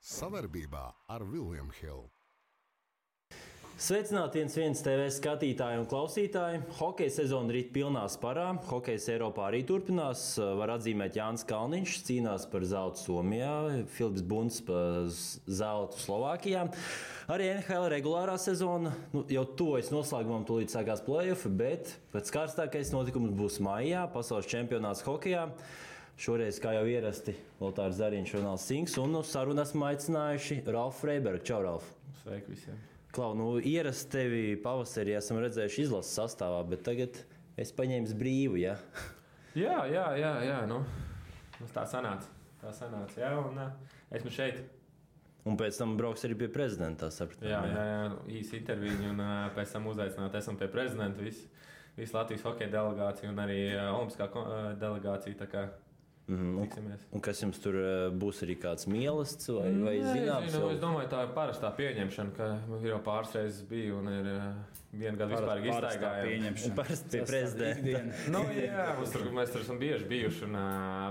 Savarbībā ar William Hill. Sveicināti viens TV skatītāji un klausītāji. Hokeja sezona rīt pilnā sparā. Hokejs Eiropā arī turpinās. Var atzīmēt Jānis Kalniņš, cīnās par zeltu Somijā, Filips Bunts par zeltu Slovākijā. Arī NHL regulārā sezona jau tuvojas noslēgumam, tūlīt sākās play-off, bet pēc karstākais notikums būs maijā, pasaules čempionāts hokejā. Šoreiz, kā jau ierasti, Lotārs Zariņš, Ronalds Sinks un uz sarunu esmu aicinājuši Ralfu Freibergu. Čau, Ralf! Sveiki visiem! Klau, ierasti tevi pavasarī esam redzējuši izlases sastāvā, bet tagad es paņēmu brīvu, ja? Jā. Tā sanāca, jā, un esmu šeit. Un pēc tam brauks arī pie prezidenta, sapratu. Jā, īsi interviju, un pēc tam uzaicināt esam pie prezidenta, visu Latvijas hokeja delegāciju un arī olimpiskā delegācija, tā kā tiksimies. Un kas jums tur būs, arī kāds mīlestības vai zināms? Es domāju, tā ir parastā pieņemšana, ka jau pāris reizes biju un ir vienu gadu vispār iztaigājām. Parasti pie prezidenta. Mēs tur esam bieži bijuši un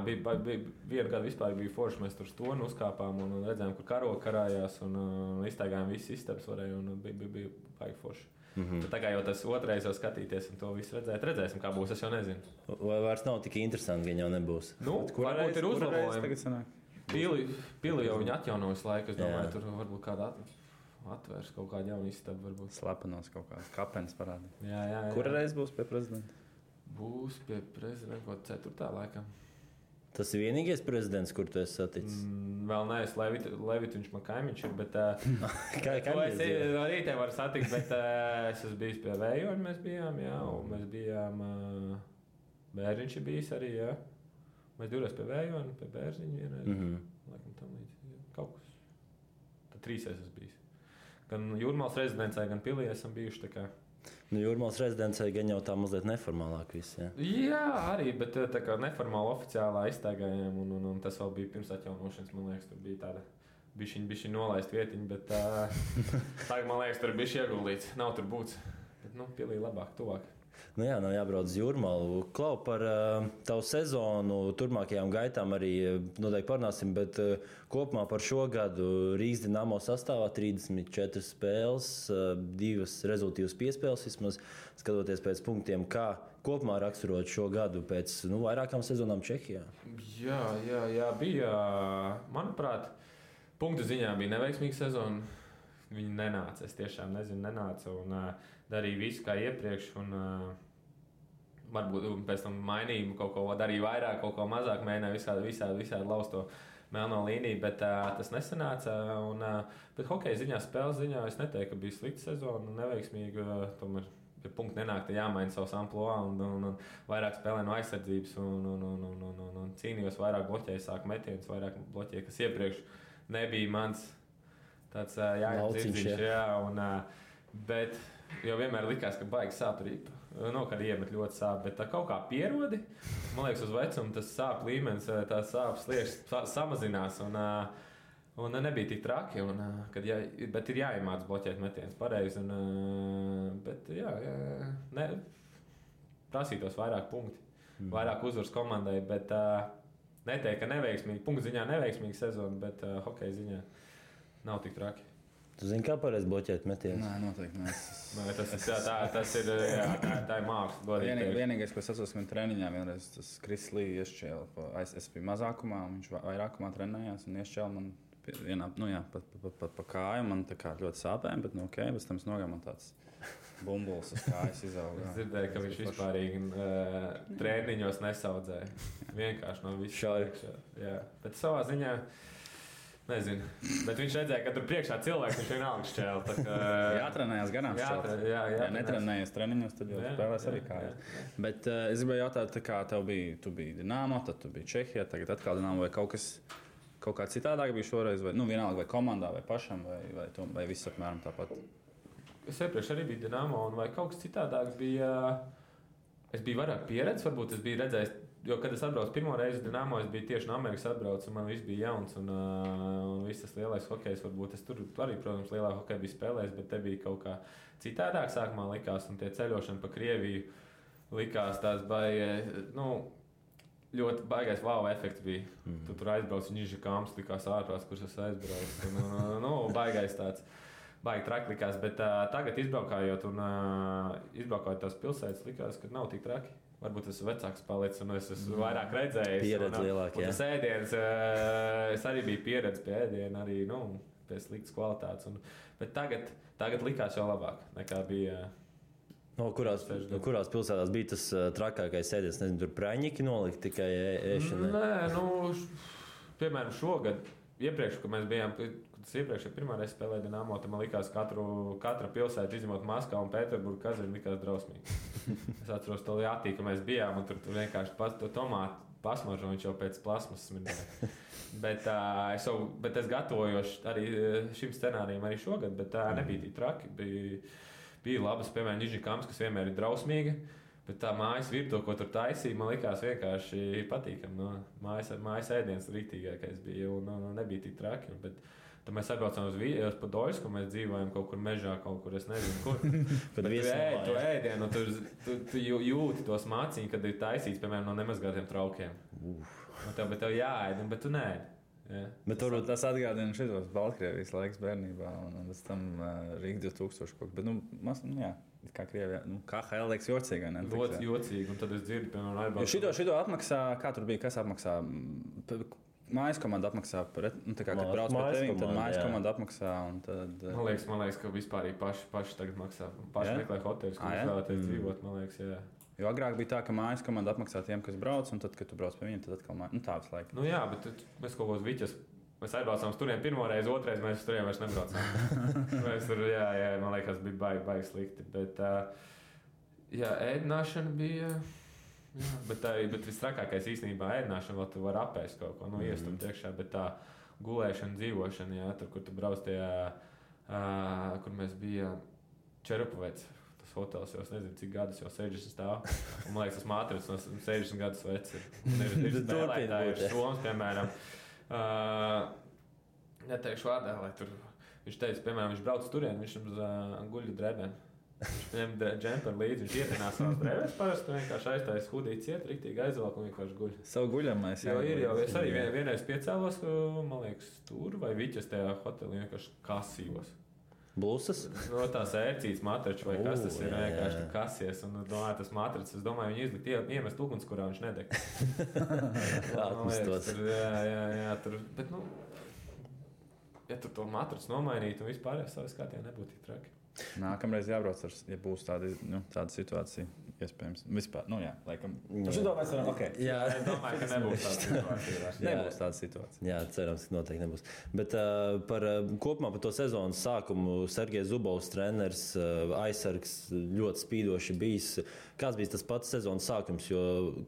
vienu gadu vispār bija forši. Mēs tur stonu uzkāpām un redzējām, kur karogi karājās un iztaigājām visas istabas varēja un bija baigi forši. Tā kā jau tas otrais jau skatīties un to visu redzēt, redzēsim, kā būs, es jau nezinu. Vai vairs nav tik interesanti, ka jau nebūs? Varbūt ir uzlabojumi. Pili jau viņi atjaunojas laiku, es domāju, tur varbūt kāda atvērs kaut kādu jaunu istabu. Varbūt. Slepenos kaut kāds kapenis parādīt. Jā. Kura reiz būs pie prezidenta? Būs pie prezidenta kaut 4. laikam. Tas ir vienīgais prezidents, kur tu esi saticis? Vēl neesmu Levits, viņš man kaimiņš ir, bet es arī te varu satikt, bet es esmu bijis pie Vējoņa, mēs bijām, Bērziņš ir bijis arī, jā. Mēs divreiz pie Vējoņa, pie Bērziņa vienreiz, laikam tam līdz, kaut kas. Tad 3 esmu bijis. Gan Jūrmālas rezidencē, gan Pilī esam bijuši, tā kā. Jūrmālas rezidencē gan jau tā mazliet neformālāk viss, jā? Jā, arī, bet tā kā neformāli oficiālā iztaigājām, un tas vēl bija pirms atjaunošanas, man liekas, tur bija tāda bišķiņ nolaist vietiņa, bet tagad, man liekas, tur bišķi ieguldīts, nav tur būts, bet, Pilī labāk, tuvāk. Jā, nav jābrauc uz Jūrmālu. Klau, par tavu sezonu, turpmākajām gaitām arī noteikti parunāsim, bet kopumā par šo gadu Rīgas Dinamo sastāvā 34 spēles, 2 rezultīvas piespēles, vismaz skatoties pēc punktiem, kā kopumā raksturot šo gadu pēc vairākām sezonām Čehijā. Jā, bija, manuprāt, punktu ziņā bija neveiksmīga sezona. Viņi nenāca, es tiešām nezinu, nenāca un darīja visu kā iepriekš un varbūt pēc tam mainīja kaut ko, darīja vairāk, kaut ko mazāk, mēģināja visādi laust to melno līniju, bet tas nesanāca. Bet hokeja ziņā, spēles ziņā es neteiktu, ka bija slikta sezona, neveiksmīga, tomēr pie punkta nenāk, jāmaina savs amploā un vairāk spēlē no aizsardzības un cīnījos, vairāk bloķēju, sāku metienus, vairāk bloķēju, kas iepriekš nebija mans. Tāds jāiedzirdziņš, bet jau vienmēr likās, ka baigi sāp rīpa. Kad iemet ļoti sāp, bet tā kaut kā pierodi. Man liekas, uz vecumu tas sāp līmenis, tā sāp sliekšņs samazinās un nebija tik traki. Bet ir jāiemāc bloķēt metienus pareizi. Bet prasītos vairāk punkti, vairāk uzvaras komandai, bet neteikt, ka neveiksmīgi, punktu ziņā neveiksmīgi sezona, bet hokeja ziņā. Nav tik traki. Tu zini, kā pareizi bloķēt metienus? Nē, noteikti nē. Tas ir, tā ir māksla. Vienīgais, ko es atceros, ka treniņā vienreiz tas Kris Lī iešķēla. Es biju mazākumā, viņš vairākumā trenējās un iešķēla man pa kāju. Man tā kā ļoti sāpēja, bet pēc tam es nogāju, man tāds bumbulis uz kājas izauga. Es dzirdēju, ka viņš vispārīgi treniņos nesaudzēja. Vienkārši no visu šādi. Bet savā ziņā nezinu, bet viņš redzēja, ka tur priekšā cilvēks viņš vienalga šķēla. Jātrenējās ganām šķēlt. Ja netrenējies treniņos, tad jau spēlēs arī kājas. Bet es gribēju jautāt, kā tu biji Dinamo, tad tu biji Čehijā, tagad atkal Dinamo, vai kaut kā citādāk bija šoreiz, vai vienalga vai komandā, vai pašam, vai viss apmēram tāpat? Es iepriekš arī biju Dinamo, un vai kaut kas citādāk bija, es biju vairāk pieredzes, varbūt es biju redzējis. Jo, kad es atbraucu pirmo reizi uz Dinamo, es biju tieši no Amerikas atbraucis, un man viss bija jauns, un viss tas lielais hokejs, varbūt es tur arī, protams, lielā hokeja biju spēlējis, bet te bija kaut kā citādāk sākumā likās, un tie ceļošana pa Krieviju likās tās baigi, ļoti baigais wow efekts bija. Tu tur aizbrauc, viņš ir kāms, likās ārprāts, kurš es aizbraucu. Baigais tāds. Baigi traki likās, bet tagad izbraukājot tās pilsētas, likās, ka nav tik traki. Varbūt es esmu vecāks palicis un es esmu vairāk redzējis. Pieredze lielāka, jā. Tas ēdiens, es arī biju pieredze pie ēdiena, arī, pie sliktas kvalitātes. Bet tagad likās jau labāk nekā bija. Kurās pilsētās bija tas trakākais ēdiens? Nezinu, tur praņķi nolikt tikai ēšanai? Nē, piemēram, šogad, iepriekš, kad mēs bijām, tas iepriekš pirmā reize spēlēja Dinamo, tad man likās katra pilsēta, izņemot Maskavu un Pēterburgu, Kazani, likās drausmīgi. Es atceros to Jātī, ka mēs bijām, un tur vienkārši to tomātu pasmaržo, viņš jau pēc plasmas smirdēja. Bet es gatavojos arī šim scenārijam arī šogad, bet nebija tik traki. Bija labas, piemēram, Nižņikams, kas vienmēr ir drausmīga, bet tā mājas virtuve, ko tur taisīja, man likās vienkārši patīkami. Mājas ēdiens rītīgākais bija, un nebija tik traki. Tad mēs atbraucām uz Padoļsku, un mēs dzīvojam kaut kur mežā, kaut kur, es nezinu, kur. Bet tu ēdienu, tu jūti tos māciņus, kad ir taisīts, piemēram, no nemazgātiem traukiem. Bet tev jāēd, bet tu neēd. Yeah. Bet turbūt tas atgādina šitos Baltkrievijas laiks bērnībā un pēc tam Rīga 2000 kaut kā. Bet, jā, kā Krievijā, KHL liekas jocīgi, ne? Ļoti jocīgi, un tad es dzirdu, piemēram, aizbraucu. Šito apmaksā, kā tur bija, kas apmaksā? Mājas komanda apmaksā, kad brauc pie tevīm, tad mājas komanda apmaksā. Tad, man liekas, ka vispār paši tagad maksā. Paši meklē hoteļus, kur vēlaties dzīvot, man liekas, jā. Jo agrāk bija tā, ka mājas komanda apmaksā tiem, kas brauc, un tad, kad tu brauc pie viņiem, tad atkal mājas. Tā visu laiku. Jā, bet mēs kaut kos viķas. Mēs aizbraucām turien pirmo reizi, otrais mēs turien vairs nebraucām. Mēs tur, jā, man liekas, bija baigi slikti. Bet, ēdināšana bija... Jā, bet visstrakākais īstenībā ēdināšana, vēl tu vari apēst kaut ko, iestumt iekšā, bet tā gulēšana, dzīvošana, jā, tur, kur tu brauc tajā, kur mēs bijām Čerupavets, tas hotels, jau es nezinu, cik gadus jau 60 stāv, un man liekas, tas mātrits no 60 gadus veci ir. Ir spēlētāji, ir Soms, piemēram, neteikšu vārdā, lai tur, viņš teica, piemēram, viņš brauc turien, viņš guļu drēbēm. Viņš ņem džemperu līdzi, viņš ietinās savās drēbēs parasti, vienkārši aiztais hudīt ciet, riktīgi aizvelk un vienkārši guļ. Savu guļamais, jā. Es arī vienreiz piecēlos, man liekas, tur vai viķas tajā hotelī vienkārši kasījos. Blūsas? No tās ērcītas matraču vai kas tas ir, vienkārši kasies. Un domāju, tas matracis, es domāju, viņi izlikt iemest uguns, kurā viņš nedeg. Atmestos. Jā, tur, bet, ja tur to matracu nomainītu un vispār savas kārtībā nebūtu tik traki. Nākamreiz jābrauc, ja būs tāda situācija, iespējams. Vispār, jā, laikam. Šito mēs varam, ok. Jā, es domāju, ka nebūs tāda situācija. Nebūs tāda situācija. Jā, cerams, ka noteikti nebūs. Bet kopumā par to sezonas sākumu Sergejs Zubovs, treneris, aizsargs, ļoti spīdoši bijis. Kāds bija tas pats sezonas sākums, jo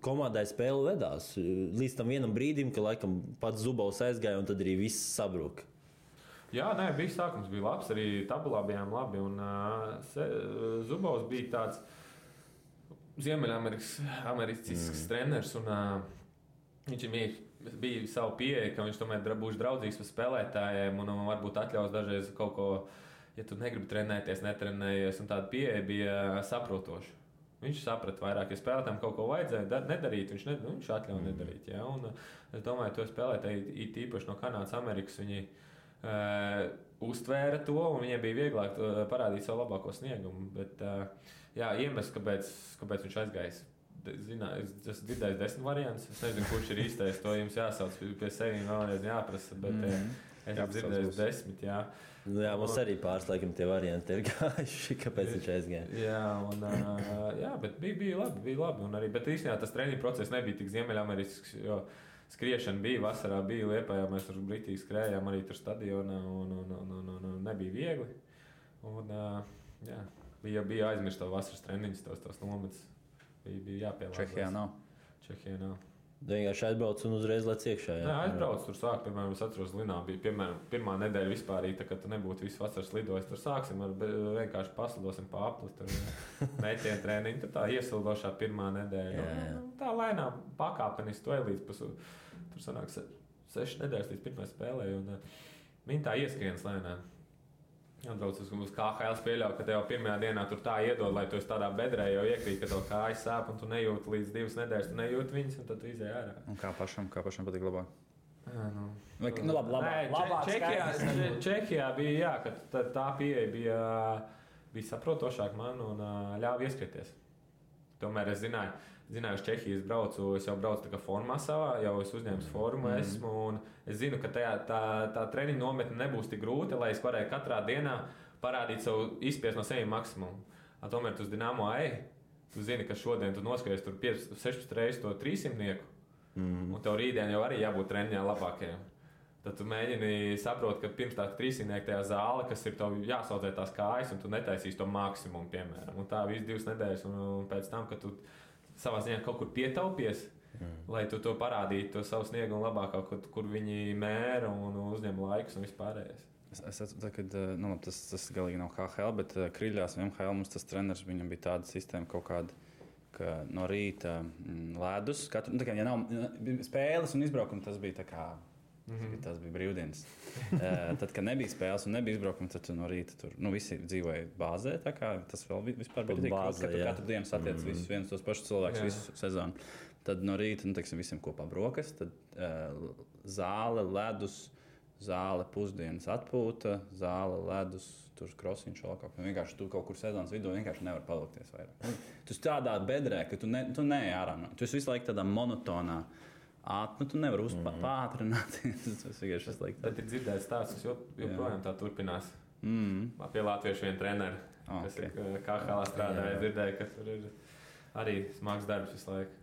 komandai spēle vedās līdz tam vienam brīdim, ka laikam pats Zubovs aizgāja un tad arī viss sabruka. Jā, bija sākums, bija labs, arī tabulā bijām labi. Un, Zubovs bija tāds ziemeļamericīsks treneris. Un, viņš bija savu pieeja, ka viņš tomēr būs draudzīgs par spēlētājiem un varbūt atļaus dažreiz kaut ko, ja tu negribi trenēties, netrenējies. Un tāda pieeja bija saprotoša. Viņš saprata vairāk, ja spēlētājiem kaut ko vajadzēja nedarīt, viņš atļauj nedarīt. Ja? Un, es domāju, to spēlētāji īpaši no Kanādas, Amerikas, viņi uztvēra to, un viņiem bija vieglāk parādīt savu labāko sniegumu. Bet, iemesls, kāpēc viņš aizgājis, es esmu dzirdējis 10 variantus. Es nezinu, kurš ir īstais, to jums jāsauc pie sevis vēlreiz jāprasa, bet es esmu dzirdējis 10. Jā, mums arī pāris laikam tie varianti ir gājuši, kāpēc viņš aizgāja. Bet bija labi. Un arī, bet īstenībā tas treniņu process nebija tik ziemeļamericks, jo skriešana bija, vasarā bija Liepājā, mēs tur britīgi skrējām arī tur stadionā un nebija viegli. Un, bija aizmirst to vasaras treniņus, tos nometus. Bija jāpielāgās. Čehijā nav. Vienkārši aizbrauc un uzreiz lec iekšā. Jā, aizbrauc, tur sāk, piemēram, es atceros, Linā bija, piemēram, pirmā nedēļa vispārīga, kad tu nebūtu visu vasaras lidojis, tur sāksim ar vienkārši paslidosim pa apli, tur mētienu treniņu, tur tā iesildošā pirmā nedēļa. Tā lēnām pakāpeniski to līdz tur sanāk 6 nedēļas līdz pirmai spēlē, un viņi tā ieskrienas lēnām. Atbrauc uz KHL pieļauju, ka tev jau pirmajā dienā tur tā iedod, lai tu esi tādā bedrē jau iekrīt, ka tev kājas sāp un tu nejūti līdz 2 nedēļas, tu nejūti viņas un tad tu izēj ārā. Un kā pašam patīk labāk? Labāk. Čehijā bija, jā, ka tā pieeja bija saprotošāka man un ļāva ieskrieties. Tomēr es zināju, uz Čehijas braucu, es jau braucu tā kā formā savā, jau es uzņēmu formu esmu, un es zinu, ka tā treniņa nometne nebūs tik grūta, lai es varēju katrā dienā parādīt savu izspiest no sevis maksimumu. Tomēr tu uz Dinamo tu zini, ka šodien tu noskaries tur 16 reizes to 300-nieku, un tev rītdien jau arī jābūt treniņā labākajam. Tad tu mēģini saprast, ka pirms tā 300-nieka tajā zāle, kas ir tev jāsaudzē tās kājas, un tu netaisīsi to maksimumu, piemēram. Un tā visu 2 nedēļas, un pēc tam, kad tu savā ziņā kaut kur pietaupies, lai tu to parādītu, to savu sniegumu labāk, kur viņi mēra un uzņem laikus un vispārējais. Es saprotu, ka tas galīgi nav KHL, bet Kriļļās un MHL mums tas treneris, viņam bija tāda sistēma kaut kāda, ka no rīta ledus, ja nav spēles un izbraukumi, tas bija tā kā, tas bija brīvdienas. Tad, kad nebija spēles un nebija izbraukumi, tad no rīta tur visi dzīvoja bāzē, tā kā tas vēl vispār bija tik grūti, ka katru dienu satiec visus viens tos pašus cilvēkus visu sezonu. Tad no rīta, visiem kopā brokas, tad zāle, ledus, zāle, pusdienas atpūta, zāle, ledus, tur krosiņš vēl kaut kā. Vienkārši tu kaut kur sezonas vidū vienkārši nevar palikties vairāk. Tu tādā bedrē, ka tu neej ārā. Tu esi visu laiku tādā monotonā. Tu nevari pātrināt. Tas vienkārši ir slikti. Tad ir dzirdēts stāsts, kas joprojām tā turpinās. Pie latviešu viena trenera, kas KHL strādāja, dzirdēja, ka tur ir arī smags darbs visu laiku.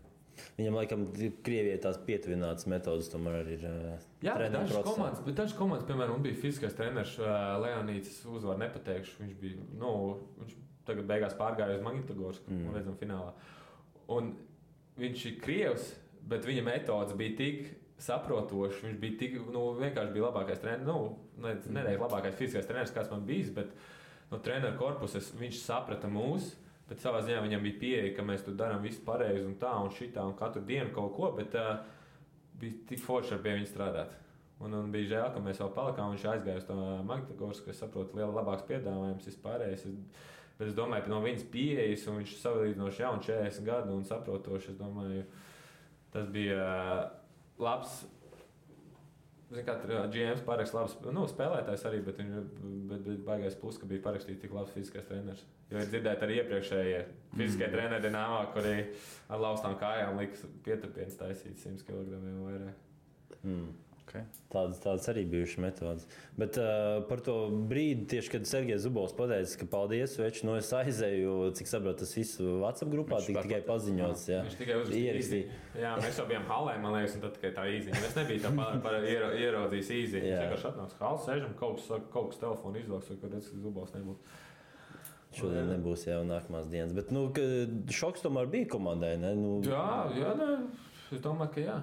Viņam, laikam, Krievijai tās pietuvinātas metodas tomēr arī ir treniņu procesā. Dažas komandas, piemēram, bija fiziskais treneris Leonīds, uzvaru nepateikšu. Viņš bija, viņš tagad beigās pārgāja uz Magnitogorsku, un redzam finālā. Un viņš ir Krievs, bet viņa metodas bija tik saprotošas, viņš bija tik, vienkārši bija labākais treneris, nedēļ labākais fiziskais treneris, kāds man bijis, bet no treneru korpuses viņš saprata mūs. Bet savā ziņā viņam bija pieeja, ka mēs tur darām visu pareizi un tā un šitā un katru dienu kaut ko, bet bija tik forši ar pie viņa strādāt. Un bija žēl, ka mēs vēl palikām, viņš aizgāja uz to Magnitogorsku, kas saprot labāks piedāvājums vispārējais. Bet es domāju, ka no viņas pieejas, un viņš salīdzinoši jaunu 40 gadu un saprotoši, es domāju, tas bija labs. Zinu, kā GMs parakst labs spēlētājs arī, bet baigais plus, ka bija parakstīts tik labs fiziskais treneris. Jo ir dzirdēt arī iepriekšējie fiziskie treneri Dinamo, kuri ar laustām kājām liks pieturpienas taisīt 100 kg vairāk. Okay. Tādas arī bijušas metodas. Bet par to brīdi, tieši kad Sergejs Zubovs pateica, ka paldies, veči, es aizēju, cik saprotu, tas viss WhatsApp grupā tikai paziņots. Viņš tikai uzrakstīja. Jā, mēs jau bijām halē, man liekas, un tad tikai tā īziņa. Es nebiju tā ieraudzījis īziņu. Viņš vienkārši atnāca halē, sēžam, kaut kas telefonu izvāks, kad Zubovs nebūtu. Šodien nebūs jau nākamās dienas. Bet šoks tomēr bija komandai, ne? Jā, es domāju, ka jā.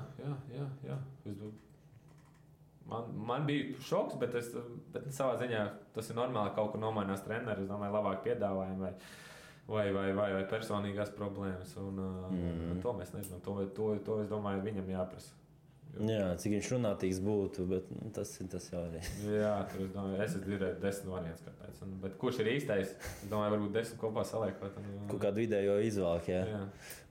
Man bija šoks, bet savā ziņā tas ir normāli, ka kaut kur nomainās treneris. Es domāju, labāk piedāvājumi vai personīgās problēmas. To mēs nezinām. To es domāju, viņam jāprasa. Jā, cik viņš runātīgs būtu, bet tas jau arī. Jā, tur es domāju, es dzirdēju 10 variants, kāpēc. Bet kurš ir īstais? Es domāju, varbūt 10 kopā saliekot. Kaut kādu vidējo izvēlku, jā.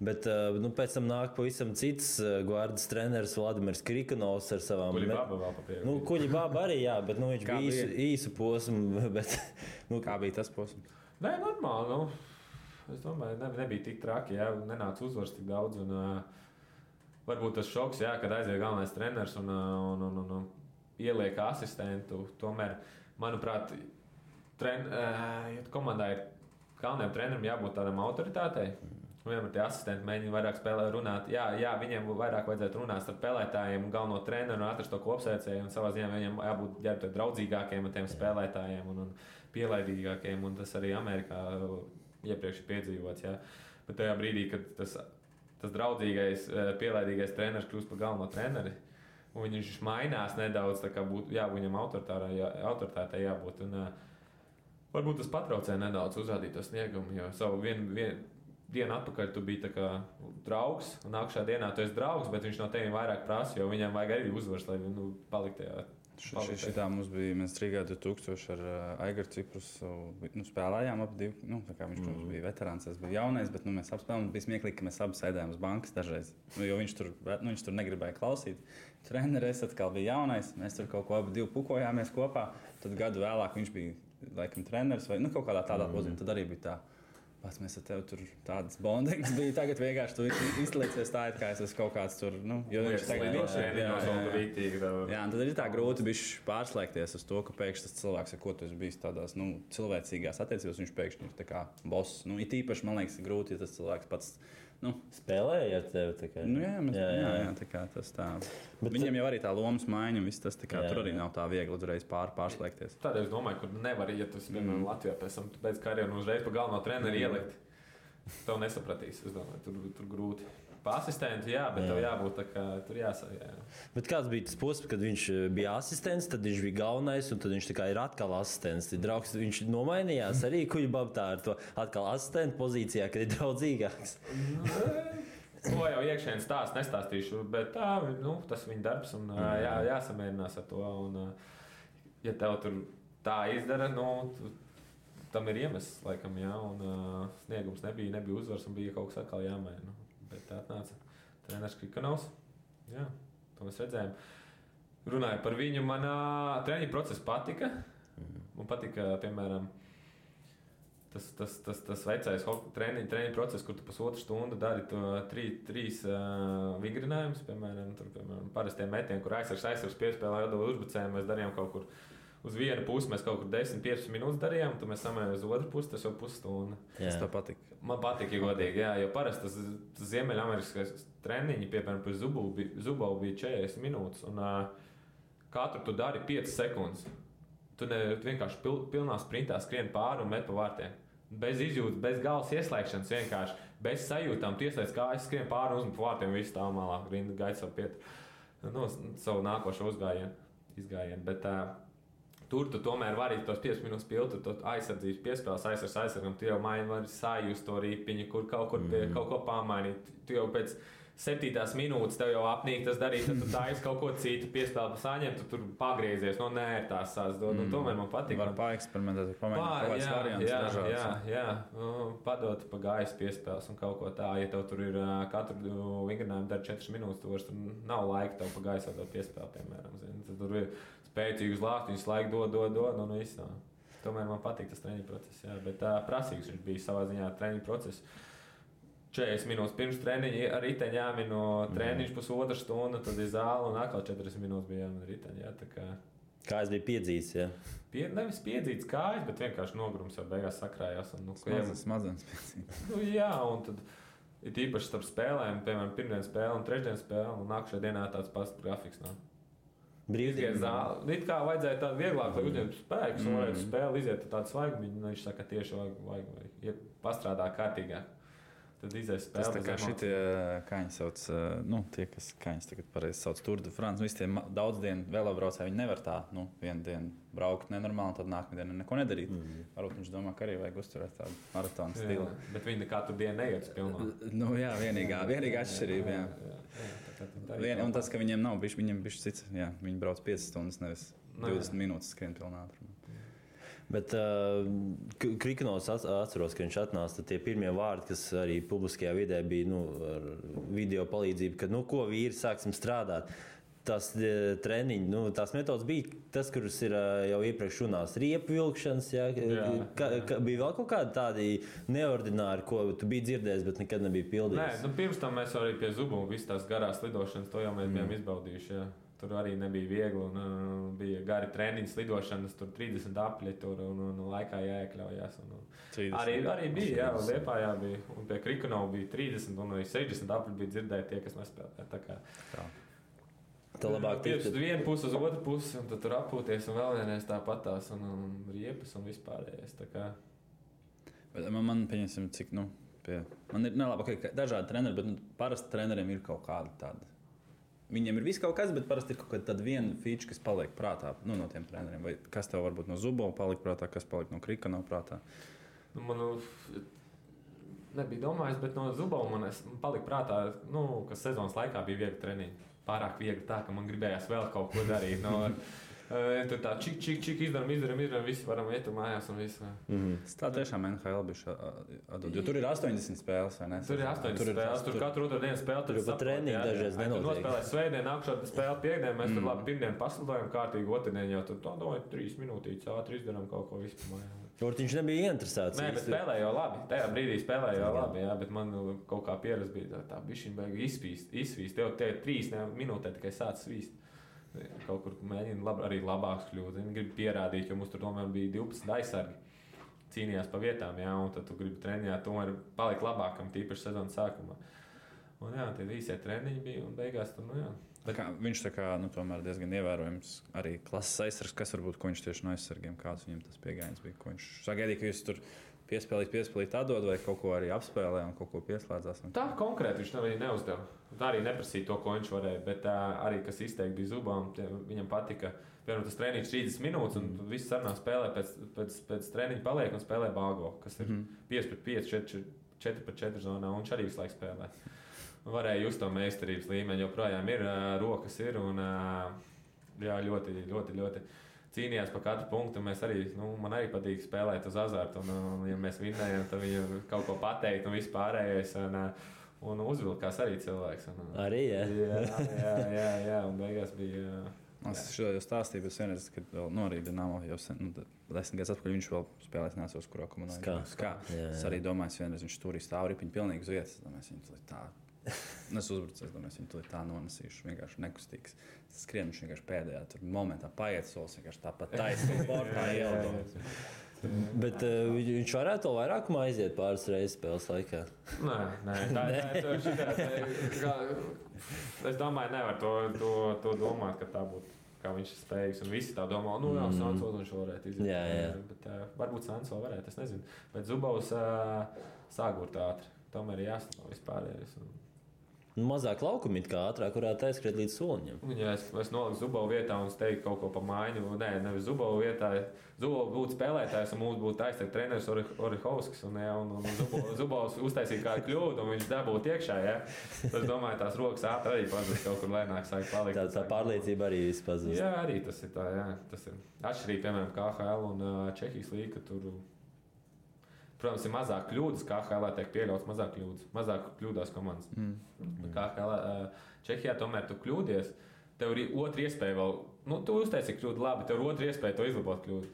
Bet pēc tam nāk pavisam cits Guardas treneris Vladimirs Krikonovs ar savām... Kuļibaba vēl papieru. Kuļibaba arī, jā, bet viņš bija īsu posmu. Bet, kā bija tas posms? Nē, normāli. Es domāju, nebija tik traki, jā, nenāca uzvars tik daudz. Varbūt tas šoks, jā, kad aiziet galvenais treneris un ieliek asistentu. Tomēr, manuprāt, komandā ir galvenajam trenerim jābūt tādam autoritātei. Vienmēr tie asistenti mēģina vairāk runāt. Jā, viņiem vairāk vajadzētu runāt ar spēlētājiem un galveno treneru un atrast to kopsēcēju. Un savā ziņā viņiem jābūt draudzīgākiem ar tiem spēlētājiem un pielaidīgākiem. Un tas arī Amerikā iepriekš ir piedzīvots. Jā. Bet tajā brīdī, kad tas draudzīgais, pielaidīgais treneris kļūst par galveno treneri, un viņš mainās nedaudz, tā kā būtu viņam autoritātei jābūt. Un, varbūt tas patraucē nedaudz uzrādīt to sniegumu, jo savu vienu dienu atpakaļ tu biji tā kā draugs, un nākamajā dienā tu esi draugs, bet viņš no tevis vairāk prasa, jo viņam vajag arī uzvaras, lai paliktu tajā Šitā mums bija, mēs Rīgā 2000 ar Aigaru Ciprus spēlējām ap divu. Tā kā viņš, protams, bija veterāns, es biju jaunais, bet mēs apspēlējām. Bija smieklīgi, ka mēs abi sēdējām uz bankas dažreiz, jo viņš tur negribēja klausīt. Treneris atkal bija jaunais, mēs tur kaut ko abi divi pukojāmies kopā. Tad gadu vēlāk viņš bija, laikam, treneris vai kaut kādā tādā pozīcijā. Tad arī bija tā. Pats mēs ar tevi tur tādas bondings bija. Tagad vienkārši tu izliecies tā, it kā es esmu kaut kāds tur, jo viņš tagad jā, tad ir tā grūti bišķi pārslēgties uz to, ka pēkšņi tas cilvēks, ar ko tu esi bijis tādās, cilvēcīgās attiecībās, viņš pēkšņi ir tā kā boss. It īpaši, man liekas, ir grūti, ja tas cilvēks pats, spēlēja ar tevi. Jā, tā kā tas tā. Bet viņam jau arī tā lomas maiņa, viss tas tā kā tur arī nav tā viegli uzreiz pārslēgties. Tādēļ es domāju, ka nevar, ja tu piemēram Latvijā pēc tam pēc karjeru uzreiz pa galveno treneri ielikt. Tev nesapratīs, es domāju, tur grūti. Pa asistentu, jā, bet tev jābūt tā kā tur jāsaka. Bet kāds bija tas posms, kad viņš bija asistents, tad viņš bija galvenais, un tad viņš tā kā ir atkal asistents. Draugs, viņš nomainījās arī kuģibabtā ar to atkal asistentu pozīcijā, kad ir draudzīgāks. To jau iekšēni nestāstīšu, bet tas ir viņa darbs, un jāsamierinās ar to. Un, ja tev tur tā izdara, tam ir iemesls, laikam, jā, un sniegums nebija uzvars, un bija kaut kas atkal jāmaina. Bet tā atnāca treneris Krikanovs. Jā, to mēs redzējām. Runāju par viņu, man treniņu process patika. Man patika, piemēram, tas vecais treniņu process, kur tu pusotru stundu dari trīs vingrinājumus. Piemēram, parastie metieni, kur aizsargs piespēlē jādod uzbrucēju, mēs darījām kaut kur. Uz vienu pusi mēs kaut kur 10-15 minūtes darījām, tad mēs samērām uz otru pusi, tas jau pusstunda. Tas tev patika? Man patika, ja godīgi, jā, jo parasti tas Ziemeļameriskais treniņi, piemēram, par Zubovu bija 40 minūtes, un katru tu dari 5 sekundes. Tu vienkārši pilnā sprintā skrien pāri un met pa vārtiem. Bez izjūtas, bez galvas ieslēgšanas, vienkārši bez sajūtām. Tu ieslēdz kājas, skrien pāri un uzmet pa vārtiem, visu stāv malā, rinda gaida savu nākošo izgājienu. Bet tur tu tomēr vari tos 5 minūtes piltu, tu aizsardzības piespēles, aizsargam, tu jau vari sajust to ripiņu, kur kaut ko pamainīt. Tu jau pēc 7. minūtes tev jau apnīk tas darīt, tad tu taisi kaut ko citu piespēli saņemt, tu tur pagriezies, nē, tās dod, un tomēr man patīk. Var paeksperimentēt, pamēģināt kaut kāds variants dažāds. Jā, padot pa gaisa piespēles un kaut ko tā, ja tev tur ir katru vingrinājumu dar 4 minūtes, tu vairs tur nav laika tev pa gaisa dot piespēli, piemēram, tad tur ir spēcīgus lāstus, laiku dod, un viss nav. Tomēr man patīk tas treniņu process, jā, bet prasīgs viņš bija savā ziņā treniņu process. 40 minūtes pirms treniņa ar riteņu jāmino treniņš pusotru stundu, tad ir zāle un atkal 40 minūtes bija jāmino riteņu. Jā, tā kā... Kājas bija piedzīts, jā? Nevis piedzīts kājas, bet vienkārši nogrums jau beigās sakrājās. Smadzenes piedzīts. Jā, un tad ir īpaši starp spēlēm, piemēram, pirmdienas spēle un trešdienas spēle, un nākušajā dienā tāds pats grafiks nav. Brīvdienas zāle. It kā vajadzēja tādu vieglāk, lai uzņemtu spēkus, un varētu spēli iziet tādu svaigumiņu, viņš saka, tieši vajag pastrādā kārtīgāk. Tad izies spēle. Tas tā kā šitie kaņi sauc, tie, kas kaņas tagad pareizi sauc Tour de France, visi tie daudz dienu velobraucēji, viņi nevar tā, vienu dienu braukt nenormāli, tad nākamā diena neko nedarīt. Varbūt viņš domā, ka arī vajag uzturēt tādu maratonu stilu. Bet viņi katru dienu neiet pilnā. Jā, vienīgā atšķirība, jā. Un tas, ka viņiem nav bišķi, viņiem bišķi cits, jā, viņi brauc 5 stundas, nevis 20 minūtes skrien pilnā ātrumā. Bet Krikanovs atceros, ka viņš atnāca tie pirmie vārdi, kas arī publiskajā vidē bija ar video palīdzību, ka ko vīri sāksim strādāt. Tas treniņi, tās metodas bija tas, kuras ir jau iepriekš runās, riepu vilkšanas, jā. Bija vēl kaut kādi tādi neordināri, ko tu biji dzirdējis, bet nekad nebija pildījis. Nē, pirms tam mēs arī pie Zubu visas tās garās lidošanas, to jau mēs bijām izbaudījuši, jā. Tur arī nebija viegli, un bija gari treniņi, lidošanas, tur 30 apļi, un laikā jāiekļaujās. Arī bija, jā, Liepājā bija, un pie Krikanova bija 30, un arī 60 apļi bija dzirdēti tie, kas nespēlē. Tā kā tā labāk tikt. Vienu pusi uz otru pusi, un tad tur apūties, un vēl vienreiz tāpatās, un riepas, un vispārējais. Tā kā... Man pieņemsim, cik, man ir nelabāk, ka dažādi treneri, bet parasti treneriem ir kaut kāda tāda. Viņiem ir viss kaut kas, bet parasti ir kaut kāda viena feature, kas paliek prātā no tiem treneriem. Vai kas tev varbūt no Zubova palika prātā, kas palika no Krikanova prātā? Man nebija domājis, bet no Zubova man palika prātā, ka sezonas laikā bija viegli treniņi. Pārāk viegli tā, ka man gribējās vēl kaut ko darīt. Tur tā čik izdaram, visi varam iet mājās un visu. Tā tiešām NHL bija atdod, jo tur ir 80 spēles, vai ne? Tur ir 80 spēles, tur katru otru dienu spēle. Tur pat treniņi dažreiz nenotiek. Tur nospēlē svētdien, nākšot spēle piekdien, mēs tur labi pirmdien paslidojam kārtīgi, otrdien jau tur domāju 3 minūtītes ātri izdarām kaut ko vispār mājā. Viņš nebija interesēts. Nē, bet spēlēja jau labi. Tajā brīdī spēlēja jau labi, jā, bet man kaut kā pieredze bija tā bišķiņ baigi izsvīst. Tev 3 minūtē tikai sāc svīst. Kaut kur mēģina arī labāks kļūt. Viņi grib pierādīt, jo mums tur tomēr bija 12 aizsargi. Cīnījās pa vietām, jā, un tad tu gribi trenēt, tomēr palikt labākam, tīpaši sezonas sākumā. Un jā, tie īsie treniņi bija un beigās tur, jā. Viņš tā kā, tomēr diezgan ievērojams arī klases aizsargs, kas varbūt, ko viņš tieši no aizsargiem, kāds viņam tas piegājiens bija, ko viņš sagaidīja, ka jūs tur piespēlīt atdod vai kaut ko arī apspēlē un kaut ko pieslēdzās. Tā konkrēti viņš arī neuzdeva. Tā arī neprasīja to, ko viņš varēja, bet arī, kas izteikti bija Zubam, viņam patika, piemēram, tas treniņš 30 minūtes un viss sarunā spēlē pēc treniņa paliek un spēlē bāgo, kas ir 5-5, 4-4 zonā un viņš arī visu laiku spēlē. Varēja just to meistarības līmeni, joprojām ir rokas ir un jā, ļoti cīnījās par katru punktu. Mēs arī, man arī patīk spēlēt uz azartu un ja mēs vinnējam, tad viņam kaut ko pateikt un viss pārējais un uzvilkās arī cilvēks. Arī, Jā, un beigās bija... Es šo jau stāstīju, bet vienreiz, kad vēl arī Dinamo jau 10 gadus atpakaļ viņš vēl spēlēs nesos, kurā komandā. Skā. Es arī domāju, vienreiz viņš tur stāv ripiņu pilnīgi uz vietas. Es domāju, tā. Es uzbrucu, viņu tā nonesīšu, vienkārši nekustīgs. Skrien viņš vienkārši pēdējā momentā paiet solis, vienkārši tāpat taisnīgi sportā ieldot. Bet viņš varētu vēl vairāk aiziet pāris reizes spēles laikā? Nē, es domāju, nevar to domāt, ka tā būtu, kā viņš ir spējīgs. Un visi tā domā, Sanso viņš varētu iziet. Jā. Bet varbūt Sanso varētu, es nezinu. Bet Zubovs sāgurt ātri. Tomēr ir jāstāv vispārējais. Mazāk laukumi kā ātrāk varētu aizskriet līdz soliņam. Ja es noliku Zubovu vietā un es teiktu kaut ko pa mājiņu. Nē, nevis Zubovu vietā. Zubovu būtu spēlētājs un mums būtu aizteikt treneris Orihovskis. Un Zubovs uztaisīja kādu kļūdu un viņš dabūtu iekšā. Ja? Tad es domāju, tās rokas ātri arī pazust kaut kur lēnāk sāk palikt. Tā pārliecība arī viss pazust. Jā, arī tas ir tā. Jā. Tas ir atšķirīgi, piemēram, KHL un Čehijas līga, ka tur... Protams, ir mazāk kļūdas, kā KHL tiek pieļauts mazāk kļūdas. Mazāk kļūdās komandas. KHL Čehijā tomēr tu kļūdies, tev ir otra iespēja vēl, tu uztaisīji kļūdu labi, tev ir otra iespēja to izlabot kļūdu.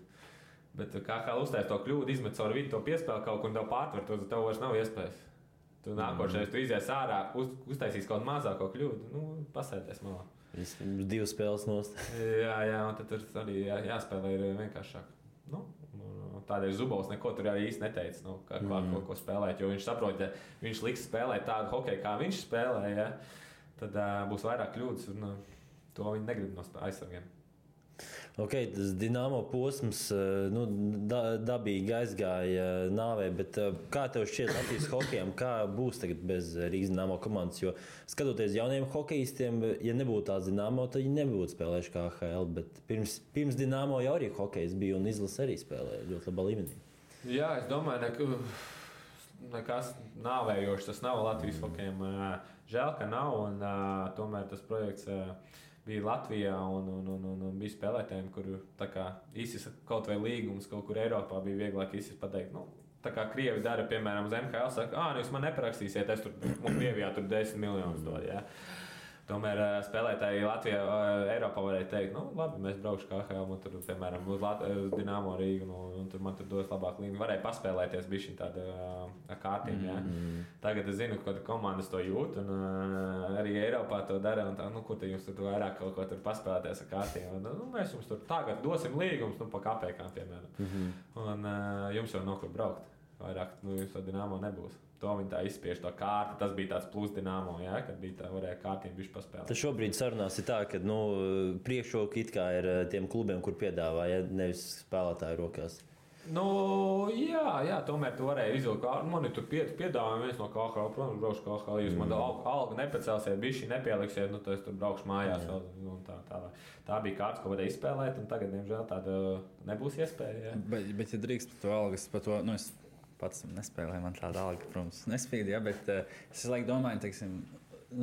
Bet KHL uztaisīja to kļūdu, izmet caur vidu, to piespēli kaut kur un tev pārtver, to tev vairs nav iespējas. Tu nākošais, tu izies ārā, uztaisīs kaut mazāko kļūdu, pasēties malā. 2 spēles nost. Jā, un tad tur arī jāspēlē ir vienkāršāk. Tādēļ Zubovs neko tur arī īsti neteica, ko spēlēt, jo viņš saprot, ja viņš liks spēlēt tādu hokeju, kā viņš spēlē, ja, tad būs vairāk kļūdas, un to viņi negrib no aizsargiem. Tas Dinamo posms dabīgi aizgāja nāvē, bet kā tev šķiet Latvijas hokejam, kā būs tagad bez Rīgas Dinamo komandas? Jo skatoties jauniem hokejistiem, ja nebūtu tāds Dinamo, tad viņi nebūtu spēlējuši KHL, bet pirms Dinamo jau arī hokejs bija un izlase arī spēlēja ļoti labā līmenī. Jā, es domāju, nekas nāvējošs tas nav Latvijas hokejam. Žēl, ka nav, un tomēr tas projekts bija Latvijā un bija spēlētājiem, kur īsis kaut vai līgums kaut kur Eiropā bija vieglāk īsis pateikt. Tā kā Krievi dara, piemēram, uz MHL, saka, jūs man neparakstīsiet, es tur, un Krievijā tur 10 miljonus dod, jā. Tomēr spēlētāji Latvijā, Eiropā varēja teikt, labi, mēs braukšu KHL, un tur, piemēram, uz Dinamo Rīgu, un tur man tur dos labāk līniju. Varēja paspēlēties bišķiņ tāda kārtīm, jā. Tagad es zinu, ka komandas to jūt, un arī Eiropā to dara, un tā, kur te jums tur vairāk kaut ko tur paspēlēties ar kārtīm. Mēs jums tur tagad dosim līgumus, pa kapēkām, piemēram. Un jums jau nav kur braukt. Vairāk, jums to Dinamo nebūs. To viņi tā izspiež to kārti. Tas bija tāds plus Dinamo, jā, kad bija tā varēja kārtīm bišķi paspēlēt. Tad šobrīd sarunās ir tā, ka priekšroka it kā ir tiem klubiem, kur piedāvā, ja nevis spēlētāju rokās. Jā, tomēr tu varēji izvilkt. Man ir tur piedāvājumi viens no KHL, protams, braukšu KHL. Jūs man algu nepacelsiet, bišķi nepieliksiet, tad es tur braukšu mājās. Tā bija kārtas, ko varēja izspēlēt, un tagad, diemžēl, tāda nebūs iespēja. Bet ja drīkst par to algas, par to, es pats nespēlēju, man tāda alga, protams, nespīd, ja, bet es domāju, teiksim,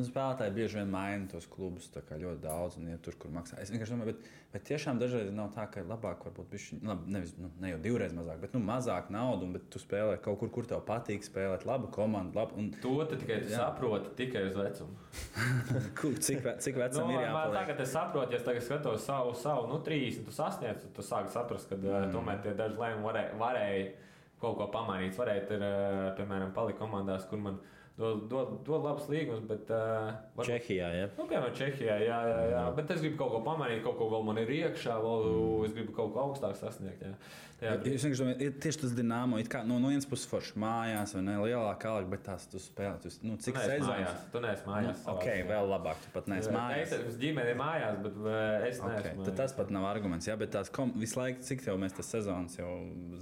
spēlētāji bieži vien maina tos klubus ļoti daudz un iet tur, kur maksā. Es vienkārši domāju, bet tiešām dažreiz nav tā, ka labāk varbūt bišķi, nevis, ne jau divreiz mazāk, bet mazāk naudu, bet tu spēlē kaut kur tev patīk spēlēt labu komandu. Labu, un... To tikai saproti tikai uz vecumu. cik vecam ir jāpaliek? Tagad es saprotu, ja es tagad skatos savu 30, tu sasniedz, tu sāki saprast, ka tomēr tie daži lēmumi varēja kaut ko pamainīt. Varētu ir, piemēram, palikt komandās, kur man dod labs līgums, bet... Čehijā, ja? Piemēram, Čehijā, jā. Bet es gribu kaut ko pamainīt, kaut ko vēl man ir iekšā, es gribu kaut ko augstāk sasniegt, jā. Es vienkārši domāju, tieši tas Dinamo, it kā no vienas puses forši mājās, vai ne, lielāka alga, bet tās tu spēlē, cik sezonas? Tu neesi mājās. Vēl labāk, tu pat neesi mājās. Es ģimene ir mājās, bet es neesmu mājās. Tad tas pat nav arguments, jā, bet tās visu laiku, cik tev mēs tas sezonas jau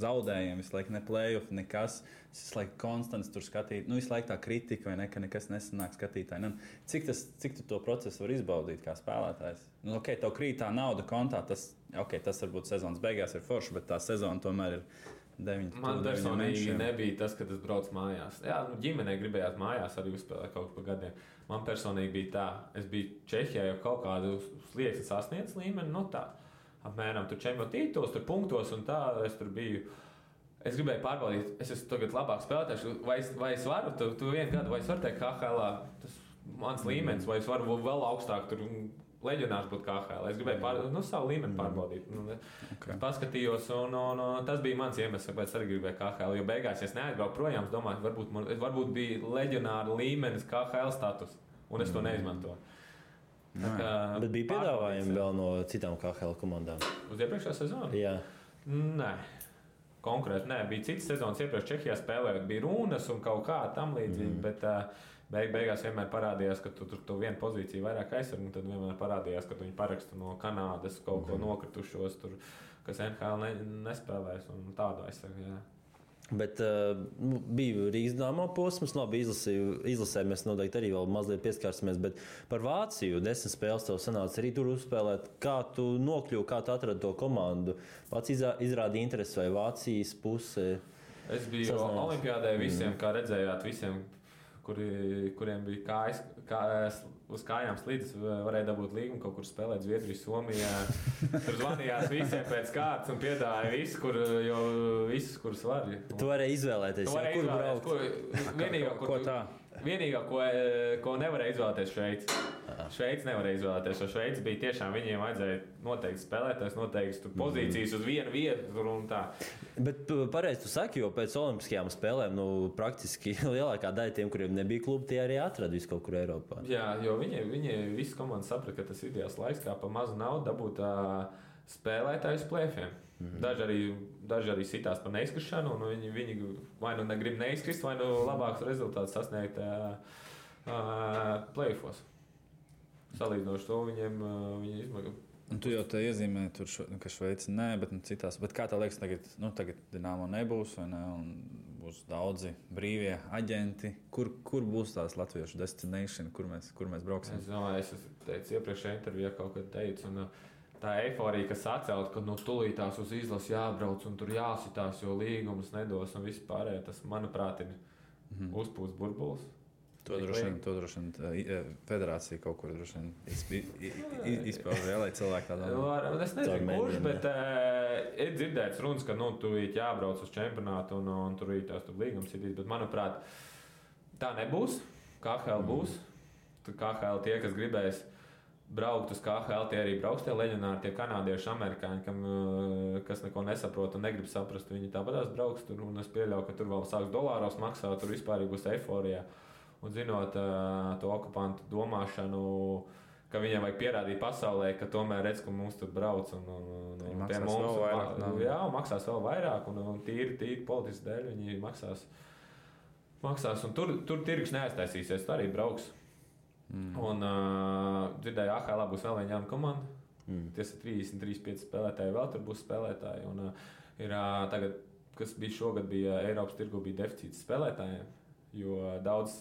zaudējam, visu laiku ne play-off, nekas, visu laiku konstants tur skatīt, visu laiku tā kritika, vai ne, ka nekas nesanāk skatītāji. Cik tu to procesu var izbaudīt kā spēlētājs? Tev krīt tā nauda kontā, tas varbūt sezonas beigās ir forši, bet tā sezona tomēr ir 9. Man personīgi nebija tas, kad es braucu mājās. Jā, ģimenei gribējās mājās arī uzspēlēt kaut pa gadiem. Man personīgi bija tā, es biju Čehijā jau kaut kādu slieksni sasniedz līmeni, tā apmēram tur čempionu tituls, tur punktos un tā, es tur biju. Es gribēju pārbaudīt, es esmu tagad labāk spēlētājs, vai es varu, tu vienu gadu, vai es varu teikt KHL, tas mans līmenis, vai es varu vēl augstāk tur leģionārs būt KHL. Es gribēju savu līmeni pārbaudīt. Paskatījos, un tas bija mans iemesls, kāpēc arī gribēju KHL. Jo beigās, ja es neaizbraucu projām, es domāju, varbūt bija leģionāra līmenis KHL status, un es to neizmantoju. Bet bija piedāvājumi vēl no citām KHL komandām? Uz iepriekšējā sezonu? Jā. Nē. Konkrēti, nē. Bija citas sezonas iepriekš Čehijā spēlējot, bija runas un kaut kā tam līdzīgi, bet beigās vienmēr parādījās, ka tu vienu pozīciju vairāk aizsargi, un tad vienmēr parādījās, ka viņi paraksta no Kanādas kaut ko nokritušos, tur, kas NHL nespēlēs un tādu aizsargi. Jā. Bet bija Rīgas Dinamo posms, labi izlasē mēs noteikti arī vēl mazliet pieskārsimies, bet par Vāciju 10 spēles tev sanāca arī tur uzspēlēt. Kā tu nokļuvi, kā tu atradi to komandu? Vācija izrādīja interesi vai Vācijas puse? Es biju olimpiādē visiem, kā redzējāt, visiem, kuriem bija kājas uz kājām slīdes, varēja dabūt līgumu, kaut kur spēlēt Zviedriju, Somijā. Tur zvanījās visiem pēc kārtas un piedāvāja visus, kurus var. Tu varēji izvēlēties, kur braukt. Vienīgā, ko nevarēja izvēlēties Šveici. Šveici nevarēja izvēlēties, jo Šveici bija tiešām, viņiem vajadzēja noteikti spēlētājs, noteikti pozīcijas uz vienu vietu un tā. Bet pareizi tu saki, jo pēc olimpiskajām spēlēm, praktiski lielākā daļa tiem, kuriem nebija klubi, tie arī atrada visu kaut kur Eiropā. Jā, jo viņi visi komandi saprata, ka tas ir ideāls laiks, kā pa mazu naudu dabūt spēlētājus plēfiem. Daži arī sitās par neizkrišanu, un viņi vai nu negrib neizkrist, vai nu labāks rezultāts sasniegt play-offos. Salīdzinoši to viņi izmaga. Un tu jau te iezīmē, ka Šveici nē, bet citās. Bet kā tā liekas, tagad Dinamo nebūs, vai ne? Un būs daudzi brīvie aģenti. Kur būs tās latviešu destination, kur mēs brauksim? Es teicu iepriekšējā intervijā kaut kad teicu, un tā eiforija, kas atcelt, ka tūlītās uz izlasi jābrauc un tur jāsitās, jo līgumus nedos un viss pārējā, tas, manuprāt, ir uzpūsts burbulis. To droši vien federācija kaut kur droši vien izpauž, lai cilvēki tā domā. Es nezinu, kurš, bet ir dzirdēts runas, ka tu jābrauc uz čempionātu un tur ir tās līgums ir, bet, manuprāt, tā nebūs. KHL būs. KHL tie, kas gribēs braukt uz KHL, tie arī brauks, tie leģionāri, tie kanādieši, amerikāņi, kas neko nesaprot un negrib saprast, viņi tāpatās brauks tur, un es pieļauju, ka tur vēl sāks dolāros maksāt, tur vispār būs eiforija. Un zinot to okupantu domāšanu, ka viņiem vajag pierādīt pasaulē, ka tomēr redz, ka mums tur brauc un pie mums maksās vēl vairāk, un tīri politiski dēļ viņi maksās. Un tur tirgus neaiztaisīsies, tur arī brauks. Un dzirdēju, AHL būs vēl viena jauna komanda. Ties ir 33-5 spēlētāji, vēl tur būs spēlētāji. Un ir tagad, kas bija šogad, bija Eiropas tirgu, bija deficīts spēlētājiem, jo daudz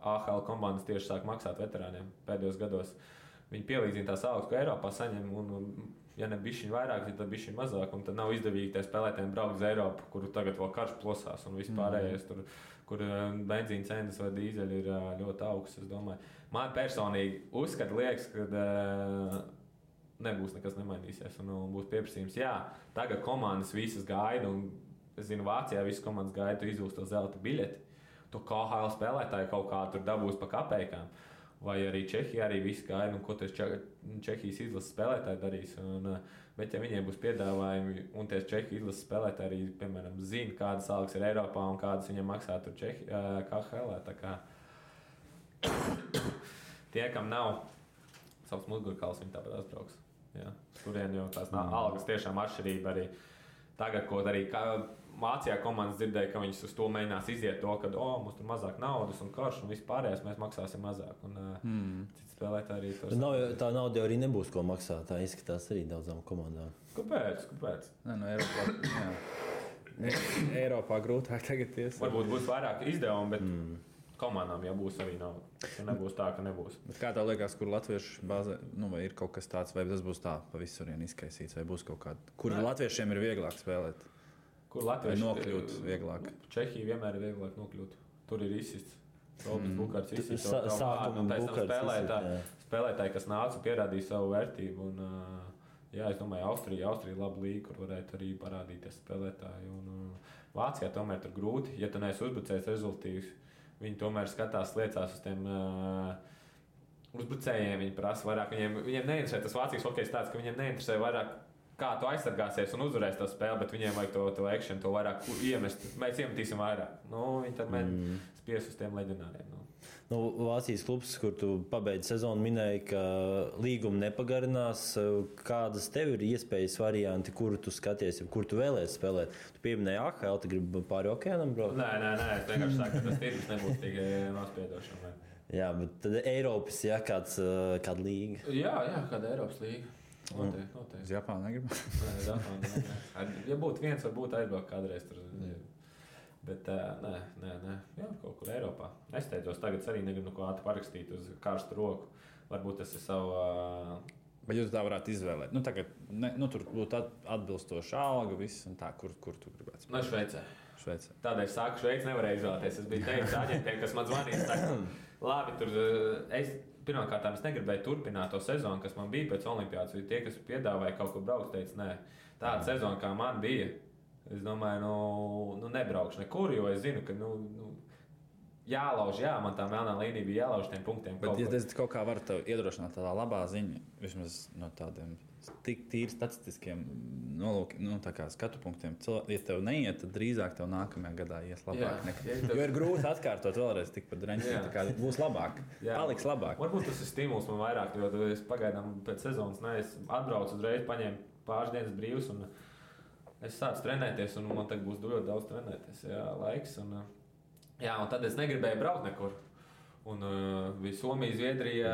AHL komandas tieši sāk maksāt veterāniem pēdējos gados. Viņi pielīdzina tās algas, ko Eiropā saņem, un ja ne bišķiņ vairāk, tad bišķiņ mazāk, un tad nav izdevīgi tie spēlētājiem braukt uz Eiropu, kur tagad vēl karš plosās un vispārējais tur, kur benzīna cenas vai dīzeļi ir ļoti augsts, es domāju. Man personīgi liekas, ka nebūs nekas nemainīsies un būs pieprasījums. Jā, tagad komandas visas gaida, un es zinu, Vācijā visas komandas gaida, tu izūs to zelta biļeti, tu KHL spēlētāji kaut kā tur dabūs pa kapeikām. Vai arī Čehija arī viss gaida, un ko tas Čehijas izlases spēlētāji darīs. Bet ja viņiem būs piedāvājumi, un tie Čehijas izlases spēlētāji arī, piemēram, zina, kādas algas ir Eiropā un kādas viņiem maksā tur KHL. Tā kā tie, kam nav savs mugurkauls, viņi tāpat atbrauks. Jā. Turien jau tās algas tiešām atšķirība arī tagad, ko arī Vācijā komandas dzirdēja, ka viņas uz to mēģinās iziet to, ka mums tur mazāk naudas un karš un viss pārējais mēs maksāsim mazāk. Citi spēlētāji arī to saka. Tā nauda arī nebūs ko maksāt, tā izskatās arī daudzām komandām. Kāpēc? Nē, Eiropā grūtāk tagad ies. Varbūt būs vairāk izdevumi, bet komandām jau būs arī nauda. Ja nebūs tā, ka nebūs. Bet kā tev liekas, kur latviešu bāzē, vai ir kaut kas tāds, vai tas būs tā pa visurien izkaisīts, vai būs kaut kāda, kur latviešiem ir vieglāk spēlēt? Kur latvieši nokļūt vieglāk? Čehija vienmēr ir vieglāk nokļūt. Tur ir izsists. Robins Bukārts izsists. Spēlētāji, kas nāca, pierādīja savu vērtību. Jā, es domāju, Austrija laba līga, kur varētu arī parādīties spēlētāji. Vācijā tomēr tur grūti. Ja tu neesi uzbrucējs rezultīvs, viņi tomēr skatās, liecās uz tiem uzbrucējiem. Viņi prasa vairāk. Viņiem neinteresē tas Vācijas hokejs tāds, ka viņiem neinteresē vairāk, kā tu aizsargāsies un uzvarēsi to spēli, bet viņiem vajag to action, to vairāk iemest. Mēs iemetīsim vairāk. Viņi tad mēģina spies uz tiem leģionāriem. Vācijas klubs, kur tu pabeidzi sezonu, minēja, ka līguma nepagarinās. Kādas tev ir iespējas varianti, kuru tu skaties, kur tu vēlēsi spēlēt? Tu pieminēji AHL, tu gribi pāri okeānam braukt? Nē, es vienkārši saku, ka tas tirgus nebūs tik nospiedošam. Jā, bet tad Eiropas, kāda līga? Jā, kāda Eiropas līga. Noteikti. Uz Japānu negribu? Nē. Ja būtu viens, varbūt aizbraukt kādreiz tur. Bet nē. Jā, kaut kur Eiropā. Nesteidzos. Tagad arī negribu neko ātri parakstīt uz karstu roku. Varbūt tas ir savu... Bet jūs tā varētu izvēlēt. Tagad, tur būtu atbilstoša alga, viss un tā, kur tu gribētu spēlēt? Šveicē. Tādēļ saku, Šveici nevarēju izvēlēties. Es biju teicis aģentiem, kas man zvanīja. Saka, labi, tur... Pirmkārt, es negribēju turpināt to sezonu, kas man bija pēc olimpiādas. Tie, kas piedāvāja kaut kur braukt, teica, nē, tāda sezona, kā man bija, es domāju, nebraukšu nekur, jo es zinu, ka jālauž, man tā melnā līnija bija jālauž tiem punktiem. Bet, ja es kaut kā varu tev iedrošināt tādā labā ziņa, vismaz no tādiem tik tīri statistiskiem skatu punktiem, ja tev neiet, tad drīzāk tev nākamajā gadā ies labāk. Jo ir grūti atkārtot vēlreiz tikpat dreņķi, tā būs labāk, paliks labāk. Varbūt tas ir stimuls man vairāk, jo es pagaidām pēc sezonas, es atbraucu uzreiz, paņēmu pāris dienas brīvs un es sācu trenēties un man tagad būs ļoti daudz trenēties, laiks. Un tad es negribēju braukt nekur. Un bija Somija, Zviedrija,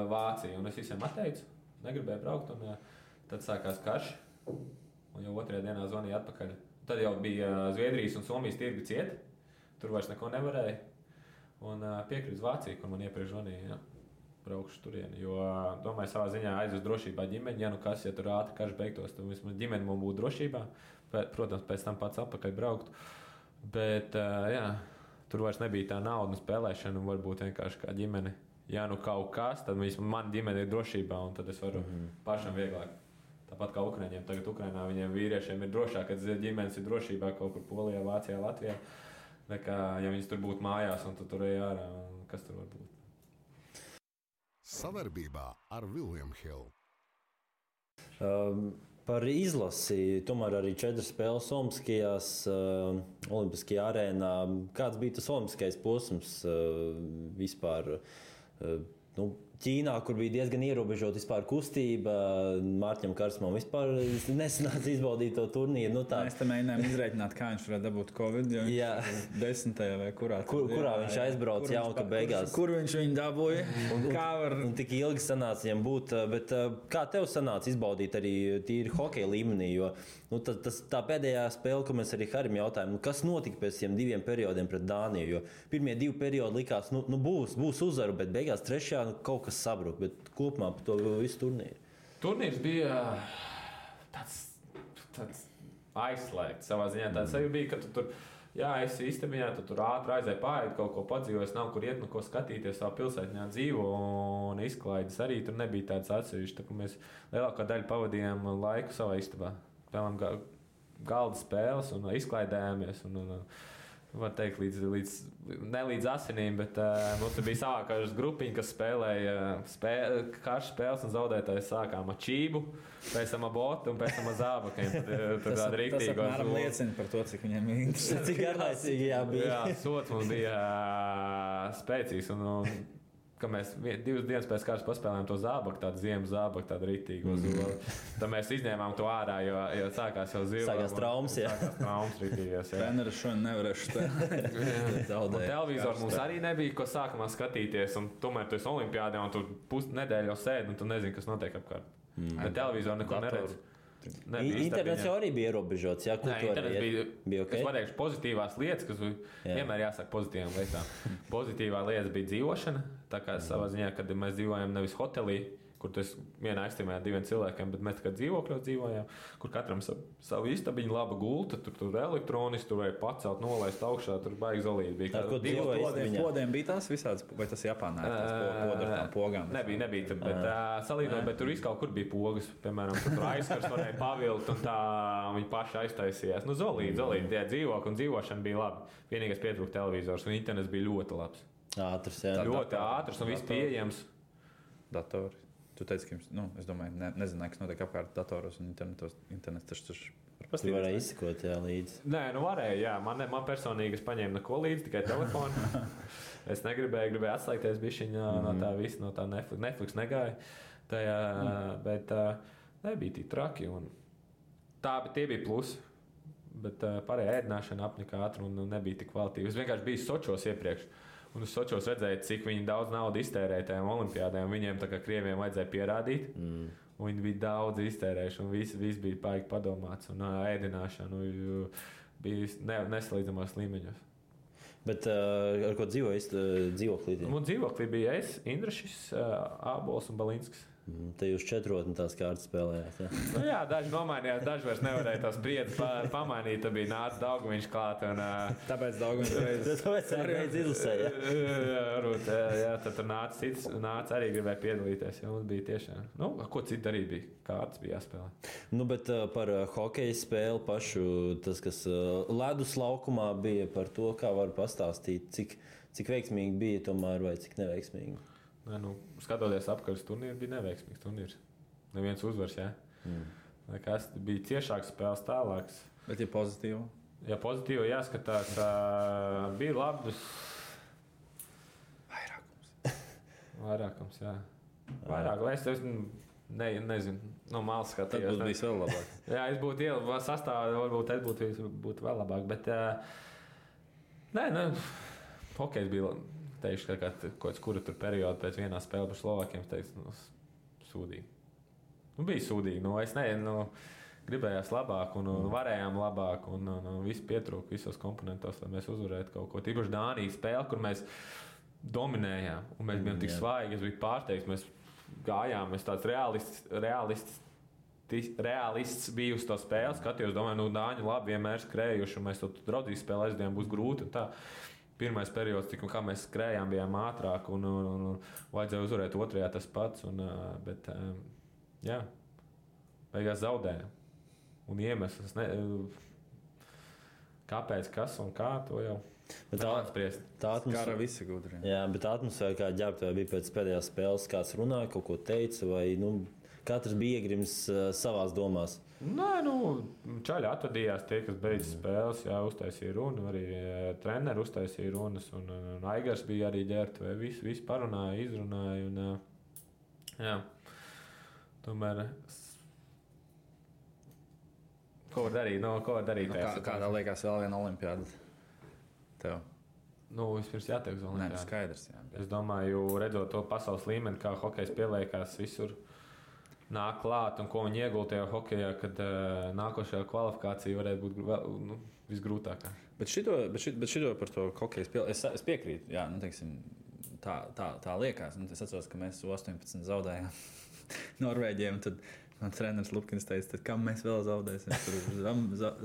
Vācija un es visiem atteicu. Negribēju braukt, un tad sākās karš. Un jau otrajā dienā zvanīja atpakaļ. Tad jau bija Zviedrijas un Somijas tirgi cieti. Tur vairs neko nevarēja. Un piekrīt uz Vāciju, kur man iepriekš zvanīja. Braukšu turieni. Jo domāju, savā ziņā aizvest drošībā ģimeni. Ja tur ātri karš beigtos, tad vismaz ģimeni man būtu drošībā. Protams, pēc tam pats atpakaļ braukt. Bet tur vairs nebija tā nauda un spēlēšana. Un varbūt vienkārši kā ģimene. Ja kaut kas, tad mana ģimene ir drošībā, un tad es varu pašam vieglāk. Tāpat kā Ukraiņiem. Tagad Ukrainā viņiem vīriešiem ir drošāk, kad ģimenes ir drošībā kaut kur Polijā, Vācijā, Latvijā. Nekā, ja viņas tur būtu mājās, un tur ej ārā, kas tur var būt. Savarbībā ar William Hill. Par izlasi, tomēr arī 4 spēles Olimpiskajās, Olimpiskajā arēnā. Kāds bija tas olimpiskais posms vispār? Ķīnā, kur bija diezgan ierobežota vispār kustība, Mārķim Karsmam vispār nesanāca izbaudīt to turnīru. Mēs tam mēģinājām izrēķināt, kā viņš varētu dabūt Covid, jo viņš 10. vai kurā viņš aizbrauca jauka beigās. Kur viņš viņu dabūja? Un tik ilgi sanāca viņam būt, bet kā tev sanāca izbaudīt arī tīri hokeja līmenī, jo tā pēdējā spēle, ko mēs arī Harim jautājām, kas notika pēc tiem 2 periodiem pret Dāniju, jo pirmie 2 periodi likās, būs uzvaru, bet beigās 3. kaut kas sabruka, bet kopumā par to visu turnīru. Turnīrs bija tāds aizslēgts savā ziņā. Tāds arī bija, ka tu tur esi istabiņā, tu tur ātri aizēji pāriet, kaut ko padzīvojis, nav kur iet, ko skatīties, savā pilsētņā dzīvo, un izklaides arī tur nebija tāds atsevišķi. Tā, mēs lielākā daļa pavadījām laiku savā istabā. Spēlējām galda spēles un izklaidējāmies. Var teikt, ne līdz asinīm, bet mums bija savākās grupiņa, kas spēlēja karš spēles un zaudētājs sākām ar čību, pēc tam ar botu un pēc tam ar zābakiem. Tas apmēram liecina par to, cik viņiem ir interesanti. Cik garlaicīgi bija. Jā, sots mums bija spēcīgs. Ka mēs 2 dienas pēc kārtas paspēlējām to zābaku, tādu ziemas zābaku, tādu ritīgu zoli. Tad mēs izņēmām to ārā, jo sākās jau zila. Sākās traumas, jā. Sākās traumas ritīgās, jā. Treneris šodien nevarēšu spēlēt. Televizoru mums arī nebija, ko sākumā skatīties, un tomēr tu esi olimpiādē, un tu pusnedēļu jau sēdi, un tu nezini, kas notiek apkārt. Bet televizoru neko neredz. Internets jau arī bija ierobežots. Jā, internets bija okay? Es pateikšu pozitīvās lietas, kas vienmēr jāsaka pozitīvām lietām. Pozitīvā lieta bija dzīvošana. Tā kā savā ziņā, kad mēs dzīvojam nevis hotelī, kur tas vienā ekstrēmā 2 cilvēkiem, bet mēs tikai dzīvokļos dzīvojām, kur katram savu istabiņu, laba gulta, tur elektroniski, tur vajag pacelt, nolaist augšā, tur baigi zolīti. Bija kur podiem bija tās visādas, vai tas Japānā ir tās podu ar tām pogām? Nebija, bet salīdzinot, bet tur viss kaut kur bija pogas, piemēram, tur aizskars varēja pavilkt un tā viņi paši aiztaisījās. Nu, zolīti, tie dzīvokļi un dzīvošana bija labi. Vienīgais pietrūka televizors un internets bija ļoti labs. Ātrs, jā. Ļoti ātrs un viss pieejams. Datori. Tu teici, ka es domāju, nezināju, kas notiek apkārt datoros un internets taču var pastīvēt. Tu varēji izsekot, jā, līdzi. Nē, varēja, jā. Man personīgi es paņēmu neko līdzi, tikai telefonu. Es gribēju atslēgties bišķiņā no tā visa, no tā Netflix negāja. Tajā, bet nebija tik traki. Bet tie bija plusi. Bet pārējā ēdināšana apnika ātri un nebija tik kvalitīva. Es vienkārši biju Sočos iepriekš. Un es Sočos redzēju, cik viņi daudz naudas iztērēja tajām olimpiādēm. Viņiem tā kā krieviem vajadzēja pierādīt. Viņi bija daudz iztērējuši un viss bija paigi padomāts. Un ēdināšana bija nesalīdzamos līmeņos. Bet ar ko dzīvoklī? Man dzīvoklī bija es, Indrašis, Ābols un Balinskis. Te jūs 4 tās kārtas spēlējāt. Jā, jā, daži nomainījās, daži vairs nevarēja tās spriedzes pamainīt. Tad bija nācis Daugaviņš klāt. Tāpēc Daugaviņš arī izlasēja. Jā, tad tur nāca arī gribēja piedalīties. Jā, mums bija tiešām. Ko citu darīt bija? Kārtas bija jāspēlē. Bet par hokeja spēli pašu, tas, kas ledus laukumā bija, par to, kā var pastāstīt, cik veiksmīgi bija tomēr vai cik neveiksmīgi. Skatoties apkārt, turnīrs bija neveiksmīgs turnīrs. Neviens uzvars, jā. Kas bija ciešāks spēles tālāks. Bet ir pozitīvi? Jā, pozitīvi jāskatās. Bija labs. Vairākums, jā. Es nezinu, no malas skatījos. Tad būtu vēl labāk. Jā, es būtu ielabā sastāvā, varbūt es būtu vēl labāk. Bet, hokejs bija... Teikšu, ka kaut kāds kura tur perioda pēc vienā spēlē par Slovākiem, teicu, sūdīgi. Bija sūdīgi. Es gribējās labāk un varējām labāk un viss pietrūka visos komponentos, lai mēs uzvarētu kaut ko. Tīpaši Dānijas spēle, kur mēs dominējām un mēs bijām tik svaigi, es biju pārsteigts, mēs gājām, mēs tāds realists biju uz to spēli, skatījos, domāju, Dāņi labi vienmēr skrējuši un mēs to draudzīgi spēli aizdien būs grūti un tā. Pirmais periods, kā mēs skrējām, bijām ātrāk un vajadzēja uzvarēt otrajā tas pats. Bet, jā, beigās zaudējām. Un iemesls, kāpēc, kas un kā, to jau spriest. Tā atmosfēra visi gudri. Jā, bet tā atmosfēra, kā ģērbtuvē bija pēc pēdējās spēles, kāds runāja, kaut ko teica, vai katrs bija iegrims savās domās. Nē, čaļi atvadījās tie, kas beidz spēles, jā, uztaisīja runu, arī treneri uztaisīja runas, un Aigars bija arī ģērbtuvē, visi parunāja, izrunāja, un jā, tomēr, ko var darīt? Kādā liekas vēl viena olimpiāda tev? Vispirms jātiek uz olimpiādu. Skaidrs, jā. Es domāju, redzot to pasaules līmeni, kā hokejs pieliekās visur, nāk klāt un ko viņi iegulda tajā hokejā, kad nākošajā kvalifikācija varētu būt visgrūtākā. Bet šito par to hokeju spēli es piekrītu. Jā, teiksim, tā liekas. Es atceros, ka mēs 18 zaudējām. Norvēģiem. Tad man treneris Lupkins teica, kam mēs vēl zaudēsim? Tur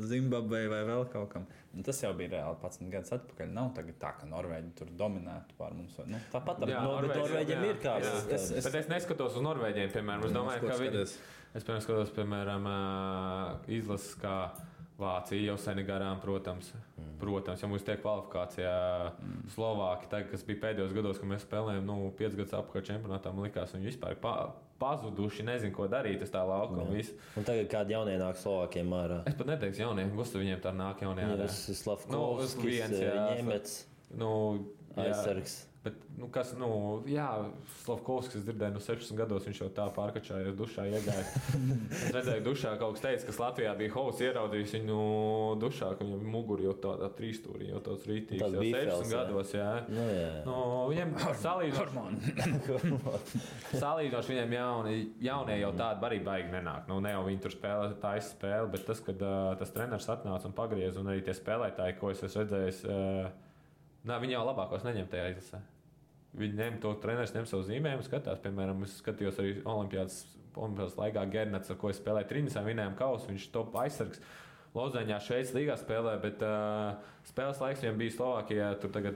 Zimbabvei vai vēl kaut kam. Un tas jau bija reāli 11 gadus atpakaļ. Nav tagad tā, ka Norvēģi tur dominētu pār mums. Nu, tāpat bet Norvēģiem ir kāds. Bet es neskatos uz Norvēģiem, piemēram. Es domāju, ka viņi... Es skatos, piemēram, izlases kā Vācija jau seni garām, protams. Ja mums tiek kvalifikācijā Slovāki, tagad, kas bija pēdējos gados, kad mēs spēlējām 5 gadus apkārt čempionātā, man likās, viņi vispār pazuduši, nezinu, ko darīt uz tā lauka. Un tagad kādi jaunie nāk Slovākiem ārā? Es pat neteiktu jaunie, Gustav viņiem tā nāk jaunie ārā. Slavkovskis, Ņemets, aizsargs. Bet, Slavkovskis, es dzirdēju, 16 gados viņš jau tā pārkačājies dušā iegāja. Es redzēju dušā, kaut kas teica, kas Latvijā bija Hovs ieraudzījis viņu dušā, ka viņam muguri jau tādā trīstūrī, jau tāds rītīgs, jau 16 gados, jā. Viņiem salīdzinoši viņiem jaunie jau tādi arī baigi nenāk. Ne jau viņi tur spēlē taisa spēli, bet tas, kad tas treneris atnāca un pagriez, un arī tie spēlētāji, ko es redzējis, viņi jau labākos neņem tajā izlasē. Viņi ņem to treneris, ņem savu zīmējumu, skatās. Piemēram, es skatījos arī Olimpiādas laikā Gernats, ar ko es spēlēju Trinisā, vinējām kausu, viņš top aizsargs. Lozaņā Šveices līgā spēlē, bet spēles laiks viņam bija Slovākijā, tur tagad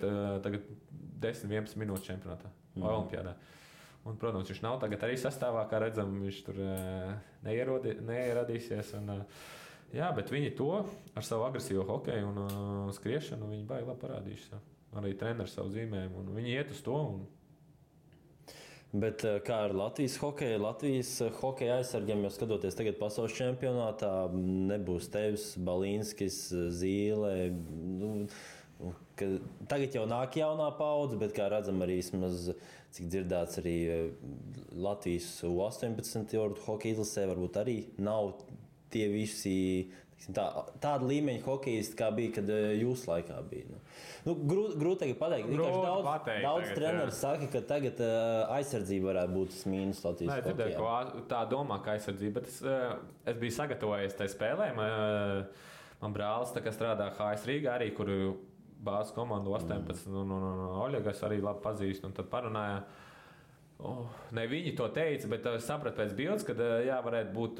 10-11 minūtes čempionātā, Olimpiādā. Un, protams, viņš nav tagad arī sastāvā, kā redzam, viņš tur neieradīsies. Bet viņi to ar savu agresīvo hokeju un skriešanu, viņi baigi labi parādījuši. Arī treneris savu zīmējumu, un viņi iet uz to. Bet kā ar Latvijas hokeju? Latvijas hokeja aizsargiem, jau skatoties tagad pasaules čempionātā, nebūs tevis, Balīnskis, Zīle. Tagad jau nāk jaunā paudze, bet kā redzam arī, cik dzirdēts arī Latvijas U18 hokeja izlasē, varbūt arī nav tie visi tāda līmeņa hokejisti, kā bija, kad jūsu laikā bija. Grūti pateikt. Daudz treneri saka, ka tagad aizsardzība varētu būt tas mīnus Latvijas hokejā. Tā domā, ka aizsardzība, bet es biju sagatavojies tai spēlē. Man brālis strādā HS Rīgā arī, kur bāzes komandu 18 un Oļegas arī labi pazīst. Un tad parunāja, ne viņi to teica, bet es sapratu pēc bildes, ka varētu būt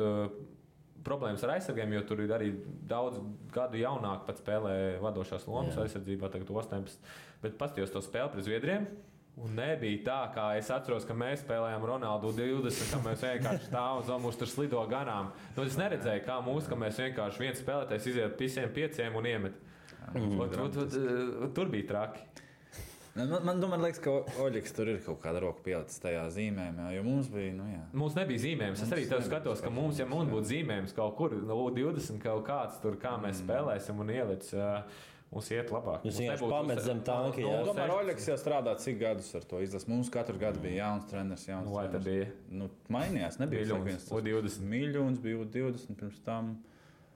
problēmas ar aizsargiem, jo tur ir arī daudz gadu jaunāk pat spēlē vadošās lomas aizsardzībā, tagad 18. Bet paskatījos to spēli pret Zviedriem, un nebija tā, kā es atceros, ka mēs spēlējām Ronaldu 20, ka mēs vienkārši stāvam un mūs tur slido garām. Es neredzēju, kā ka mēs vienkārši viens spēlētājs iziet visiem 5 un iemet. Tur bija traki. Man liekas, ka Oļegs tur ir kaut kāda roka pielicis tajā zīmējumā, jo mums bija, Mums nebija zīmējums. Es arī tev skatos, ka mums būtu zīmējums kaut kur, 20 kaut kāds tur, kā mēs spēlēsim un ielic, mums iet labāk. Jūs vienkārši pamet zem tanki, jā. Tomēr Oļegs jau strādā cik gadus ar to izlases. Mums katru gadu bija jauns treneris, jauns treneris. Vai tad bija? Mainījās, nebija U20. Miļons bija U20 pirms tam.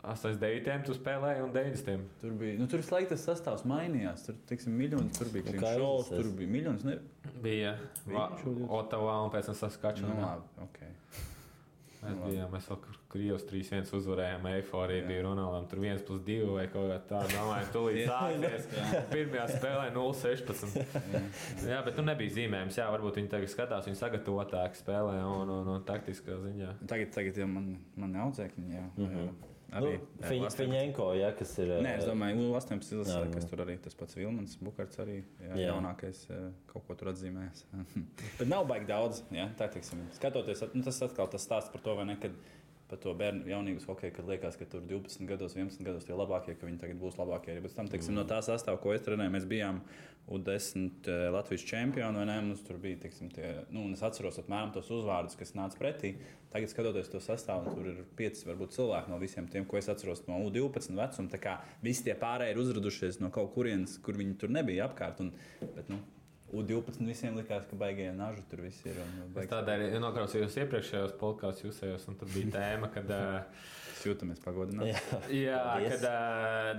89. tu spēlēji un 90. Tur bija, tur visu tas sastāvs mainījās. Tur, teiksim, Miļons, tur bija Klimšovs, tur bija Miļons. Bija Otavā un pēc tam Saskačanā. Mēs vēl Krievs 3-1 uzvarējām, eiforija bija Ronaldam, tur 1+2 vai kaut kā tā, domāju, tulīt sāksies. Pirmajā spēlē 0-16. Jā, bet nebija zīmējums, varbūt viņi tagad skatās, viņi sagatavotāk spēlē un taktiskā ziņā. Tagad jau man audzēkņi, jā. Fiņenko, kas ir... Nē, es domāju, U18 izlasē, kas tur arī tas pats Vilmans Bukarts arī jaunākais kaut ko tur atzīmējas. Bet nav baigi daudz, tā teiksim. Skatoties, tas atkal tas stāsts par to, vai ne, kad par to bērnu jaunības hokeju, kad liekas, ka tur 12 gados, 11 gados tie labākie, ka viņi tagad būs labākie. Bet tam, teiksim, no tā sastāva, ko es trenēju, mēs bijām U10 Latvijas čempioni, vai ne? Mums tur bija, teiksim, un es atceros apmēram tos uzvārdus, kas nāca pretī. Tagad, skatoties to sastāvu, tur ir 5 varbūt cilvēki no visiem tiem, ko es atceros no U12 vecuma. Tā kā visi tie pārējie ir uzradušies no kaut kurienes, kur viņi tur nebija apkārt. Bet, U12 visiem likās, ka baigie naži tur viss ir. Es tādēļ noklausījos iepriekšējos podkāstus jūsējos, un tad bija tēma, kad... Jūtamies pagodināti. Jā, kad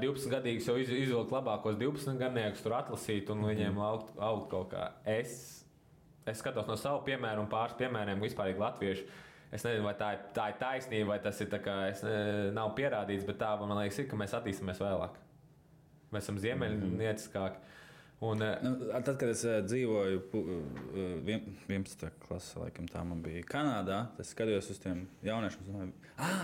12-gadīgs jau izvilkt labākos 12-gadniekus tur atlasīt un viņiem augt kaut kā. Es skatos no savu piemēru un pāris piemēriem vispārīgi latviešu. Es nezinu, vai tā ir taisnība, vai tas ir tā kā nav pierādīts, bet tā, man liekas, ir, ka mēs attīstamies vēlāk. Mēs esam ziemeļnieciskāki. Tad, kad es dzīvoju 11. klasē, laikam tā man bija Kanādā, es skatījos uz tiem jauniešiem.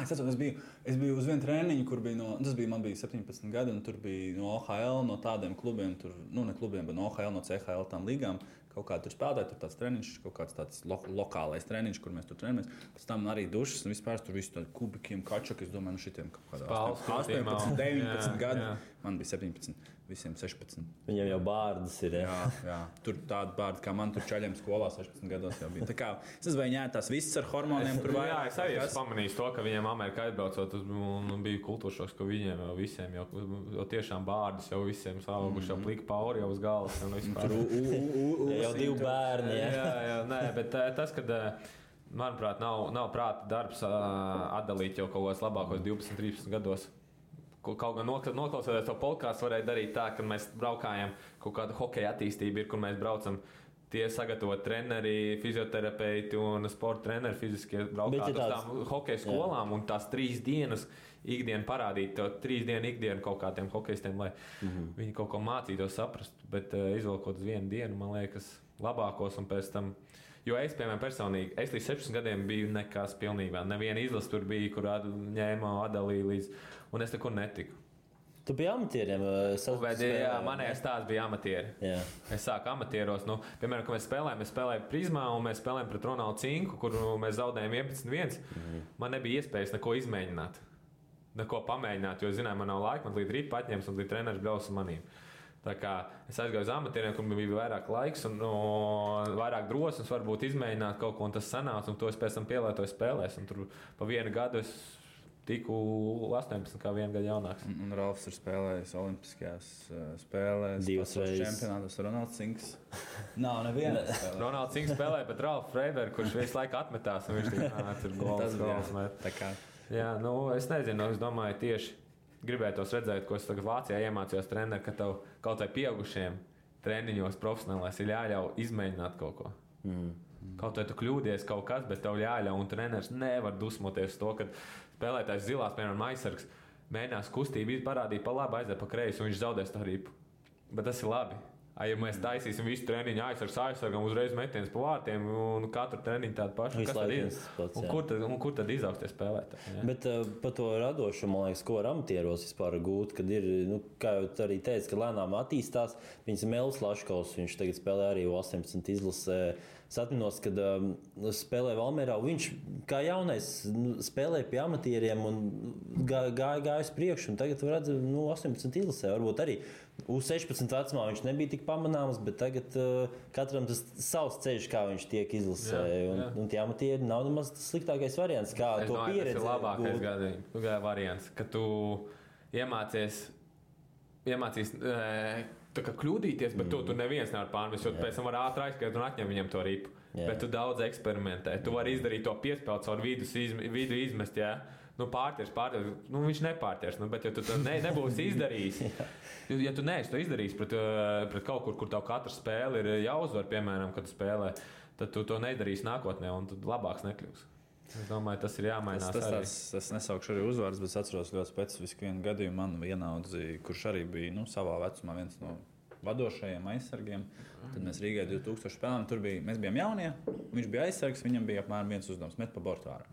Es biju uz vienu treniņu, kur bija man bija 17 gadi, un tur bija no OHL, no tādiem klubiem, ne klubiem, bet no OHL, no CHL tām līgām. Kaut kā tur spēlēja, tur tāds treniņš, kaut kāds tāds lokālais treniņš, kur mēs tur trenējamies. Pēc tam arī dušas un vispār tur visu tādu kubikiem, kačaki. Es domāju, šitiem kaut kādā 18, 19 gadi. Man bija 17, visiem 16. Viņam jau bārdas ir. Jā. Tur tāda bārda, kā man tur čaļiem skolā 16 gados jau bija. Tā kā es nezvēju, tās visas ar hormoniem tur vajag. Jā, es arī esmu pamanījis to, ka viņiem Amerikā aizbraucot, bija kultūršoks, ka viņiem jau visiem jau tiešām bārdas jau visiem sauguši, jau plika pauri jau uz galvas. Jau 2 bērni. Jā, nē, bet tas, kad, manuprāt, nav prāta darbs atdalīt jau kaut kos labākos 12, 13 gados. Kaut gan noklausoties to podkāstu, varēja darīt tā, ka mēs braukājam, kaut kāda hokeja attīstība ir, kur mēs braucam tie sagatavot treneri, fizioterapeiti un sporta treneri fiziskie braukāt uz tām hokeja skolām un tās 3 dienas ikdienu parādīt, to 3 dienu ikdienu kaut kādiem hokejistiem, lai viņi kaut ko mācītos saprast, bet izvilkot uz 1 dienu, man liekas, labākos un pēc tam. Jo es, piemēram, personīgi, es līdz 16 gadiem biju nekas pilnībā. Neviena izlase tur bija, kur ņēma atdalīja līdz, un es nekur netiku. Tu biji amatieriem? Jā, manējais tās bija amatieri. Jā. Es sāku amatieros, piemēram, kad mēs spēlējām Prizmā un mēs spēlējām pret Ronaldu Cinku, kur mēs zaudējām 11-1. Man nebija iespējas neko izmēģināt, neko pamēģināt, jo, zinām, man nav laika, man līdz rīt paņems un līdz treneris brauc ar manīm. Tā kā es aizgāju uz amatieriem, kur bija vairāk laiks un vairāk drosmes, varbūt izmēģināt kaut ko, un tas sanāca, un to es pēc tam pielietoju spēlēs. Un tur pa 1 gadu es tiku 18, kā 1 gadu jaunāks. Un Ralfs ir spēlējis Olimpiskajās spēlēs, 2 reizes čempionātos. Ronalds Cinks. Nav neviena. Ronalds Cinks spēlēja pret Ralfu Freibergu, kurš visu laiku atmetās, un viņš tur gols met. Jā, es nezinu, es domāju tieši. Gribētos redzēt, ko es tagad Vācijā iemācījos treneri, ka tev kaut vai pieaugušiem treniņos profesionālais ir jāļauj izmēģināt kaut ko. Kaut vai tu kļūdies kaut kas, bet tev jāļauj, un treneris nevar dusmoties to, ka spēlētājs zilās, piemēram, aizsargs, mēģinās kustību parādīt pa labi, aiziet pa kreisi, un viņš zaudēs tā ripu. Bet tas ir labi. Ja mēs taisīsim visu treniņu aizsargam, uzreiz metiens pa vārtiem un katru treniņu tādu pašu, kas tad ir? Kur tad izaugs tie spēlētāji? Bet par to radošumu, man liekas, ko var amatieros vispār gūt, kad ir, kā jau tu arī teici, ka lēnām attīstās. Viņas Melis Laškovs, viņš tagad spēlē arī 18 izlasē. Es atminos, kad spēlēja Valmierā, viņš kā jaunais spēlēja pie amatieriem un gāja uz priekšu, un tagad redz 18 izlasē, varbūt arī. U16 vecumā viņš nebija tik pamanāms, bet tagad katram tas savs ceļš, kā viņš tiek izlasē. Un tie amatieri nav nemaz tas sliktākais variants, kā to pieredzi. Tas ir labākais variants, ka tu iemācies tā kā kļūdīties, bet tu neviens nevar pārmest, jo pēc tam var ātri aizskriet un atņem viņam to ripu. Bet tu daudz eksperimentē. Tu vari izdarīt to piespēli caur vidu izmest, jā. Pārtiers, viņš nepārtiers, bet ja tu to nebūsi izdarījis, ja tu neesi to izdarījis pret kaut kur tev katra spēle ir jāuzvar, piemēram, kad tu spēlē, tad tu to nedarīsi nākotnē un tad labāks nekļūs. Es domāju, tas ir jāmainās arī. Es nesaukšu arī uzvārds, bet es atceros ļoti specifisku vienu gadījumu. Man vienaudzi, kurš arī bija savā vecumā viens no vadošajiem aizsargiem. Tad mēs Rīgā 2000 spēlējām. Mēs bijām jaunie. Viņš bija aizsargs, viņam bija apmēram viens uzdevums – met pa bortu ārā.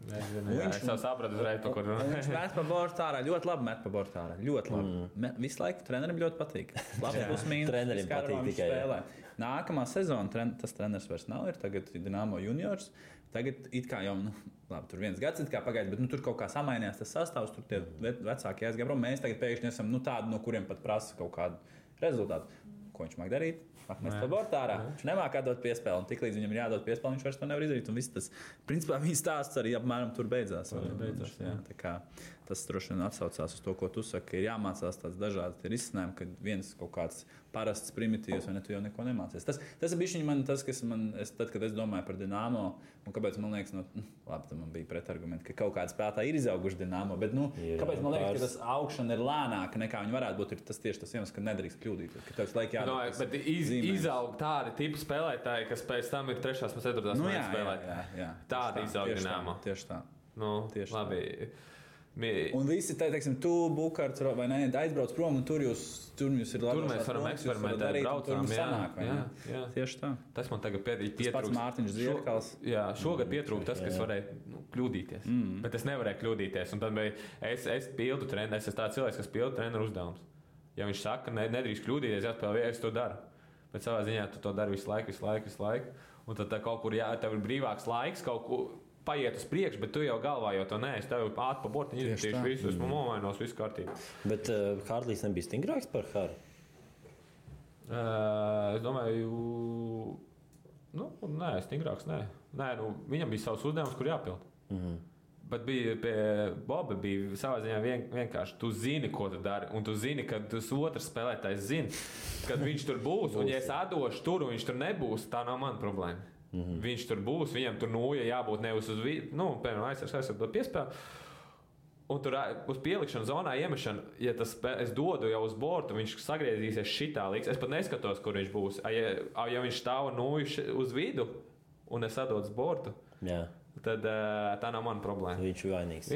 Es jau sapratu uzreiz, pa kur. Viņš met pa bortu ārā, ļoti labi met pa bortu ārā. Ļoti labi. Visu laiku trenerim ļoti patīk. Labi, trenerim patīk tikai. Nākamā sezona tas treneris vairs nav, ir tagad Dinamo juniors. Tagad it kā jau, labi, tur 1 gads pagājis, bet tur kaut kā samainījās tas sastāvs, tur tie vecākie aizgāja prom. Mēs tagad pēkšņi esam tādi, no kuriem pat prasa kaut kādu rezultātu. Ko viņš māk darīt? Mēs pa bortu ārā. Viņš nemāk atdot piespēli, un tiklīdz viņam ir jādod piespēli, viņš vairs to nevar izdarīt. Un viss tas, principā, viņa stāsts arī apmēram tur beidzās. Tā kā tas droši vien atsaucās uz to, ko tu saki, ir jāmācās tāds dažādi risinājumi, kad viens kaut kāds parasts primitīvs, vai ne, tu jau neko nemācies. Tas ir bišķiņ man tas, kas man, tad, kad es domāju par Dinamo, un kāpēc man liekas, labi, tam man bija pretargumenti, ka kaut kāda spēlētāji ir izauguši Dinamo, bet, kāpēc man liekas, ka tas augšana ir lēnāka nekā viņi varētu būt, ir tas tieši tas iemesls, ka nedrīkst kļūdīties, ka tev laik jādod. Bet izaug tādi tipi spēlētāji, kas pēc tam ir 3. un 4. spēlētāji. Jā. Tādi izaug Dinamo. Tieši tā. Labi. Un visi, teiksim, tu, Bukārts, vai ne, aizbrauc prom, un tur jūs ir labi. Tur mēs varam eksperimentēt, braucām, jā. Tieši tā. Tas man tagad pietrūkst. Tas pats Mārtiņš Zierkals. Jā, šogad pietrūkst tas, kas varēja kļūdīties. Bet es nevarēju kļūdīties. Un tad es pildu treneru, es esmu tāds cilvēks, kas pildu treneru uzdevums. Ja viņš saka, nedrīkst kļūdīties, jāspēlē, es to daru. Bet savā ziņā tu to dari visu laiku. Un tad kaut kur, tev ir brīvāks laiks, kaut kur paiet uz priekšu, bet tu jau galvā jau to neesi. Tev ir ātri pa bortiņu izmetīšu visu, esmu nomainos, visu kārtībā. Bet Hārlijs nebija stingrāks par Hāri? Es domāju, nē, stingrāks, nē. Nē, viņam bija savs uzdevums, kur jāpild. Bet bija pie Boba bija savā ziņā vienkārši. Tu zini, ko tu dari, un tu zini, ka tas otrs spēlētājs zina, kad viņš tur būs. Un ja es atdošu tur, un viņš tur nebūs, tā nav mana problēma. Viņš tur būs, viņam tur jābūt nevis uz vidu, piemēram, aizsardot piespēli. Un tur uz pielikšanu zonā iemešanu, ja es dodu jau uz bortu, viņš sagriezīsies šitā līdz. Es pat neskatos, kur viņš būs. Ja viņš stāv uz vidu, un es atdodu uz bortu, tad tā nav mana problēma. Viņš ir vainīgs.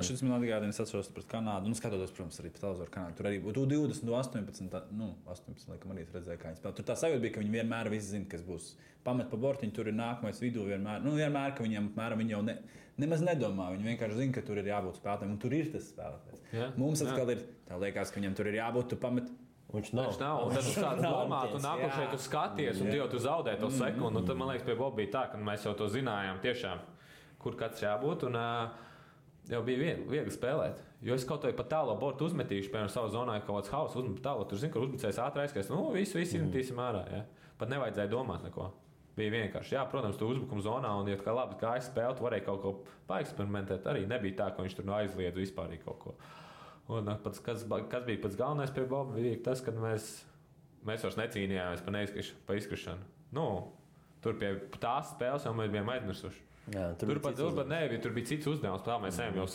Šis man atgādina, es atceros pret Kanādu. Skatoties, protams, arī par televizoru Kanādu. Tur arī būtu 20, 18, laikam arī redzēja, kā viņi spēlē. Tur tā sajūta bija, ka viņi vienmēr visi zina, kas būs. Pamet pa bortiņu, tur ir nākamais vidū vienmēr. Vienmēr, ka viņam apmēram viņi jau nemaz nedomā. Viņi vienkārši zina, ka tur ir jābūt spēlētājiem, un tur ir tas spēlētājs. Mums atkal ir, tā liekas, ka viņam tur ir jābūt, tu pamet. Viņš nav. Un tad tu sāc domāt, un nākošais tu skaties, un tu zaudē to sekundi. Un tad, man liekas, pie Boba bija tā, ka mēs jau to zinājām tiešām, kur katrs jābūt. Un jau bija viegli spēlēt. Jo es kaut vai pa tālo bortu uzmetīšu, piemēram, savā zonā kaut kāds hauss uzmet tālo. Tur zinu, ka uzbrucējs ātri aizskais. Visu izmetīsim ārā. Ja? Pat nevajadzēja domāt neko. Bija vienkārši. Jā, protams, tu uzbrukuma zonā, un, ja kā labi gāja spēle, tu varēja kaut ko paeksperimentēt. Arī nebija tā, ka viņš tur aizliedz vispār kaut ko. Un kas bija pats galvenais pie Boba, bija tas, ka mēs vairs necīnījāmies pa izkrišanu. Tur pie tās spēles jau mēs bijām aizmirsuši. Jā, tur bija cits uzdevums. Tā mēs ejam jau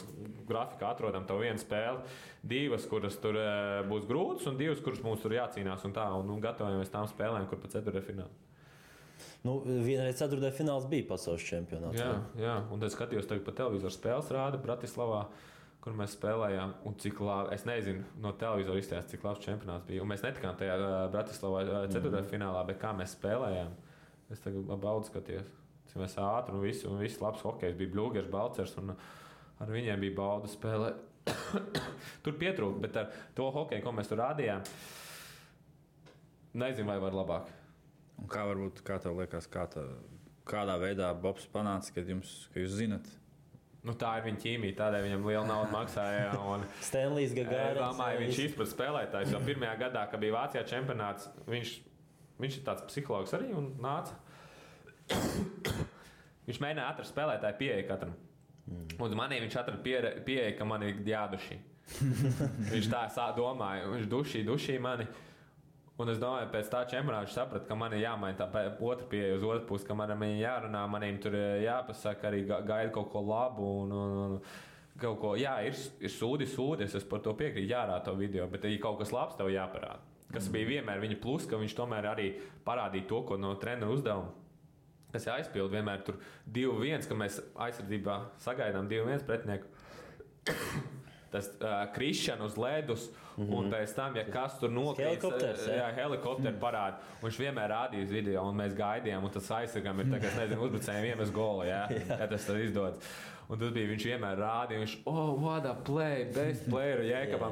grafikā atrodam to vienu spēli, 2, kuras tur būs grūtas, un 2, kuras mums tur jācīnās. Un gatavojamies tām spēlēm, kur pa ceturtfinālā. Vienreiz ceturtajā fināls bija pasaules čempionāts. Jā, un tad skatījos tagad pa televizoru spēles rāda Bratislavā, kur mēs spēlējām, un cik labi, es nezinu, no televizora izstāstīt, cik labs čempionāts bija. Un mēs netikām tajā Bratislavā ceturtajā finālā, bet kā mēs spēlējām, es tagad baudu skatījos. Mēs ātri un viss labs hokejs bija Bļūgers, Balcers, un ar viņiem bija bauda spēlē. Tur pietrūka, bet ar to hokeju, ko mēs tur rādījām, nezinu, vai var labāk. Un kā tev liekas, kādā veidā Bobs panāca, ka jūs zinat? Tā ir viņa ķīmija, tādēļ viņam liela nauda maksāja. Stanlijs Gagārins. Viņš izprat spēlētājs, jo pirmajā gadā, kad bija Vācijā čempionāts, viņš ir tāds psihologs arī un nāca. Viņš mēģināja atrast spēlētāju pieeja katram. Un manī viņš atrada pieeja, ka man ir jādušī. Viņš tā domāja, viņš dušī mani. Un es domāju, pēc tā čempionāta viņš saprata, ka man ir jāmaina tā otra pieeja uz otru pusi, ka manam jārunā, maniem tur jāpasaka, arī gaida kaut ko labu. Un kaut ko, jā, ir sūdi, es par to piekrītu, jārāda to video, bet ja kaut kas labs tev jāparāda. Kas bija vienmēr viņa plus, ka viņš tomēr arī parādīja to, ko no treneru uzdevuma. Kas aizpild vienmēr tur 2-1, ka mēs aizsardzībā sagaidām 2-1 pretinieku. Tas krišana uz ledus, un pēc tam, ja kas tur nokrīt, helikopteri parāda. Un viņš vienmēr rādīja uz video, un mēs gaidījām, un tas aizsargam ir tā, ka, es nezinu, uzbrucējiem iemes golu, ja tas tad izdodas. Un tas bija, viņš vienmēr rādīja, viņš, what a play, best player, Jēkabam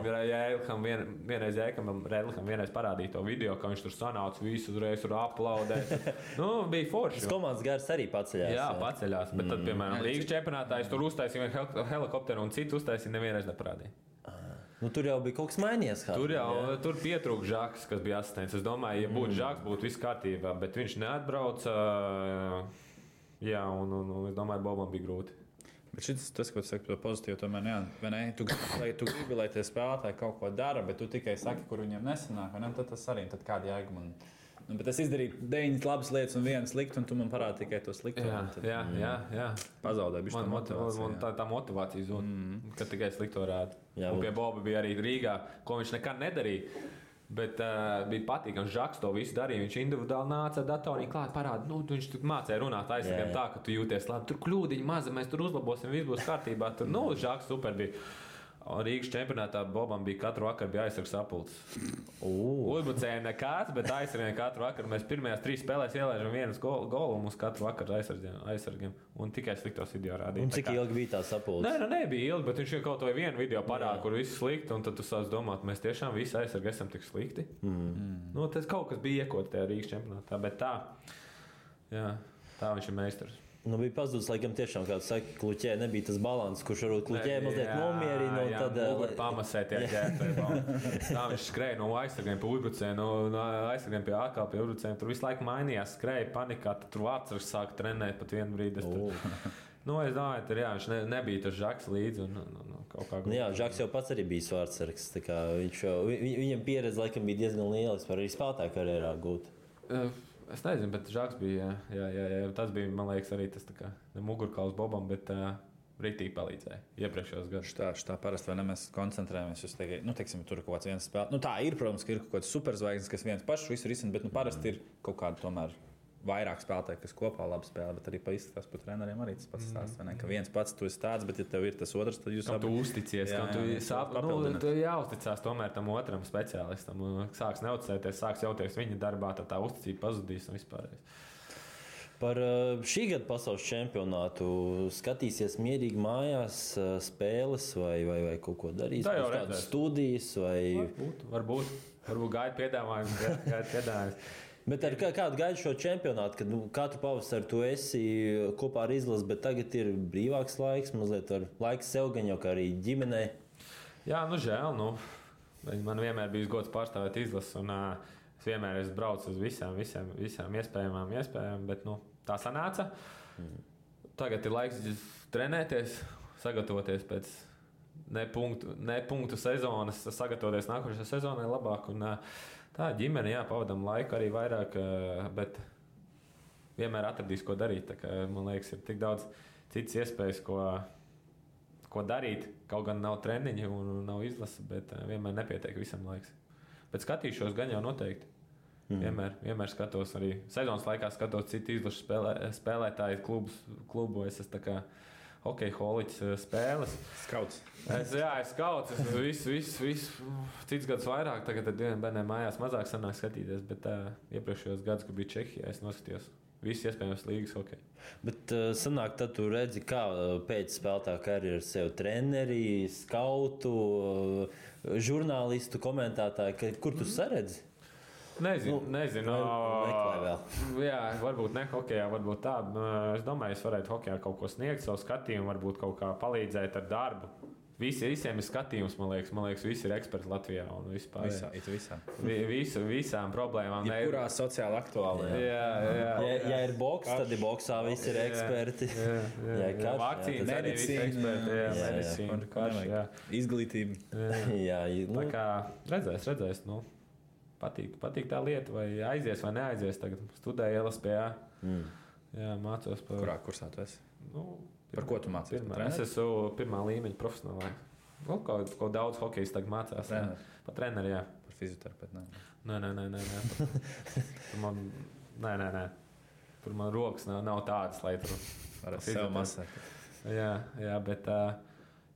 vienreiz parādīja to video, ka viņš tur sanāca visu uzreiz tur aplaudē. Bija forši. Tas komandas gars arī paceļās. Jā, paceļās, bet tad, piemēram, Līgas čempionātā es tur uztaisīju helikopteru un citu uztaisīju, nevienreiz neparādīja. Tur jau bija kaut kas mainījies. Tur pietrūka Žaks, kas bija asistents. Es domāju, ja būtu Žaks, būtu viss kārtībā, bet viņš neatbrauca. Jā, un es domāju, Bobam bija grūti. Bet tas, ko tu saki par pozitīvu, tomēr tu gribi, lai tie spēlētāji kaut ko dara, bet tu tikai saki, kur viņiem nesanāk. Tad tas arī ir kāda jēga man. Bet es izdarīju 9 labas lietas un 1 sliktu, un tu man parādi tikai to slikto. Jā. Pazaudēju bišķi tā motivācija. Tā motivācija zūd, kad tikai slikto rāda. Un pie Boba bija arī Rīgā, ko viņš nekad nedarīja. Bet bija patīkami, Žaks to visu darīja. Viņš individuāli nāca ar datoriem klāt, parāda, viņš tur mācīja runāt aizsargiem tā, ka tu jūties labi. Tur kļūdiņi maza, mēs tur uzlabosim, viss būs kārtībā. Tur, Žaks super bija. Rīgas čempionātā Bobam bija katru vakaru aizsargs sapulcs. Uzbrucējiem nekāds, bet aizsargiem katru vakaru. Mēs pirmajās 3 spēlēs ielaižam vienas golu un mums katru vakaru aizsargiem. Un tikai sliktos video rādīja. Un cik ilgi bija tā sapulce? Nebija ilgi, bet viņš jau kaut vai vienu video parāda, kur viss slikti. Un tad tu sāc domāt, mēs tiešām visi aizsargi esam tik slikti. Tas kaut kas bija iekots tajā Rīgas čempionātā, bet tā viņš ir meistars. Bija pazudis, laikam, tiešām, kā tu saki, Kluķē nebija tas balans, kurš varbūt Kluķē mazliet nomierina. Tad pamasē tie ģērbēji. Tā viņš skrēja no aizsargiem pie uzbrucējiem, no aizsargiem pie atkal pie uzbrucējiem. Tur visu laiku mainījās, skrēja panikā, tad tur vārdsargs sāka trenēt pat vienu brīdi. Es domāju, tur viņš nebija tas Žaks līdzi. Kaut kā Žaks jau pats arī bija vārdsargs. Viņam pieredze laikam bija diezgan liela, vispār arī spēlētāju karjerā gūt. Es nezinu, bet Žaks bija. Jā. Tas bija, man liekas, arī tas mugurkauls Bobam, bet rītīgi palīdzēja iepriekšējos gados. Tā parasti mēs koncentrējamies uz teiksim, tur kaut kāds viens spēlē. Tā ir, protams, ka ir kaut kāds superzvaigznes, kas viens pašs visu risina, bet parasti ir kaut kāda tomēr vairāk spēlētāji, kas kopā labi spēlē, bet arī pa izskatās par treneriem arī tas pats stāsts. Ka viens pats tu esi tāds, bet ja tev ir tas otrs, tad jūs abi uzticies. Tu jāuzticās tomēr tam otram speciālistam. Sāks neuzticēties, sāks jauties viņa darbā, tad tā uzticība pazudīs un vispārējais. Par šī gada pasaules čempionātu skatīsies mierīgi mājās spēles vai kaut ko darīs? Tā jau kādas studijas vai... Varbūt gaida piedāvājums. Bet ar kādu gaidu šo čempionātu, kad katru pavasaru tu esi kopā ar izlasi, bet tagad ir brīvāks laiks, mazliet laiks sev gan jau kā arī ģimenei? Jā, žēl. Man vienmēr bija gods pārstāvēt izlasi, un es vienmēr esmu braucis uz visām iespējamām, bet tā sanāca. Tagad ir laiks trenēties, sagatavoties pēc ne punktu sezonas, sagatavoties nākošajai sezonai labāk. Tā ģimene, pavadām laiku arī vairāk, bet vienmēr atradīs, ko darīt. Man liekas, ir tik daudz citas iespējas, ko darīt. Kaut gan nav treniņi un nav izlase, bet vienmēr nepietiek visam laiks. Bet skatīšos gan jau noteikti. Vienmēr skatos arī sezonas laikā, skatos citu izlašu spēlētāju klubos. Es tā kā hokeja holiķis spēles. Skauts. Es skauts. Visu cits gadus vairāk. Tagad ar diviem bērniem mājās mazāk sanāk skatīties. Bet iepriekšējos gadus, kad bija Čehijā, es noskatījos visu iespējamos līgas hokeju. Bet sanāk, tad tu redzi, kā pēc spēlētāja karjeras sev treneri, skautu, žurnālistu, komentētāju. Kur tu saredzi? Nezinu. Jā, varbūt ne hokejā, varbūt tā. Es domāju, es varētu hokejā kaut ko sniegt, savu skatījumu, varbūt kaut kā palīdzēt ar darbu. Visiem ir skatījums, man liekas, visi ir eksperti Latvijā un vispār. Visām problēmām. Jebkurā sociāli aktuālā. Jā. Ir boks, tad ir boksā visi ir eksperti. Vakcīnas arī visi eksperti. Izglītība. Tā kā redzēs. Patīk tā lieta, vai aizies vai neaizies. Tagad studēju LSPA. Jā, mācos par... Kurā kursā tu esi? Par ko tu mācies? Es esmu pirmā līmeņa profesionālā. Kaut daudz hokejs tagad mācās. Par treneri, jā. Par fizioterapeitu? Nē. Nē. Tur man rokas nav tādas, lai tur... Ar sev masēt. Jā, bet...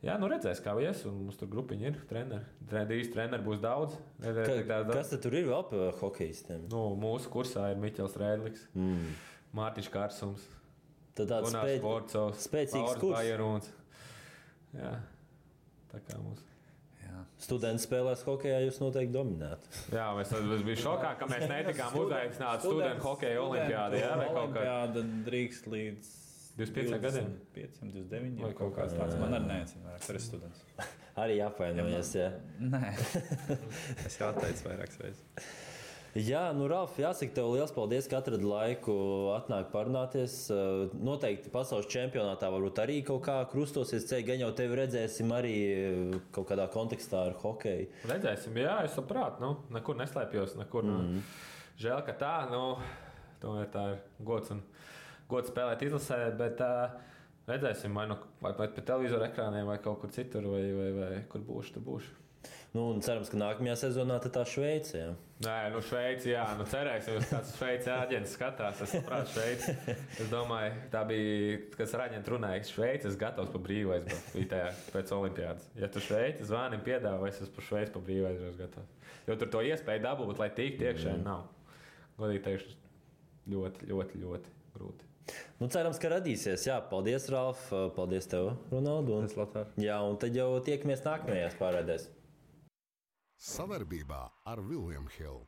redzēs, kā ies, un mums tur grupiņi ir treneri. Treneri būs daudz. Kas tad tur ir vēl par hokejistiem? Mūsu kursā ir Miķels Rēdliks, Mārtiņš Kārsums, tad tāds spēcīgs kurs. Bajeruns. Jā, tā kā mums. Studenti spēlēs hokejā, jūs noteikti dominētu. Jā, es biju šokā, ka mēs netikām uzaicināti studentu hokeja olimpiādi. Olimpiāda drīkst līdz 25 gadiem? 29 vai kaut kāds tāds. Man arī neatcīm vairāk, tur ir students. Arī apvainojies, jā? Nē, es jau atteicu vairākas reizes. Jā, Ralf, jāsaka tev liels paldies, ka atradi laiku atnāk parunāties. Noteikti pasaules čempionātā varbūt arī kaut kā krustosies ceļi, gan jau tevi redzēsim arī kaut kādā kontekstā ar hokeju. Redzēsim, jā, es saprātu, nekur neslēpjos, nekur. Žēl, ka tā, tomēr tā ir gods spēlēt izlasē, bet redzēsim, vai pie televizora ekrāniem, vai kaut kur citur, vai kur būšu, tur būšu. Nu, un cerams, ka nākamajā sezonā tā Šveice. Jā. Nē, nu Šveici, jā, nu cerēsim, ka kāds Šveici āģents skatās. Es saprotu, Šveici. Es domāju, tā bija, kas ar āģentu runāja, Šveici es gatavs pa brīvu aizbraukt pēc olimpiādas. Ja tu Šveici zvani piedāvā, es pa Šveici pa brīvu aizbraukt gatavs. Jo tur to iespēju dabūt, lai tiktu iekšēji nav. Godīgi teikšu, ļoti, ļoti, ļoti grūti. Nu, cerams, ka radīsies. Jā, paldies, Ralf. Paldies tev, Ronaldu. Jā, un tad jau tiekamies nākamajās pārēdēs. Savarbībā ar William Hill.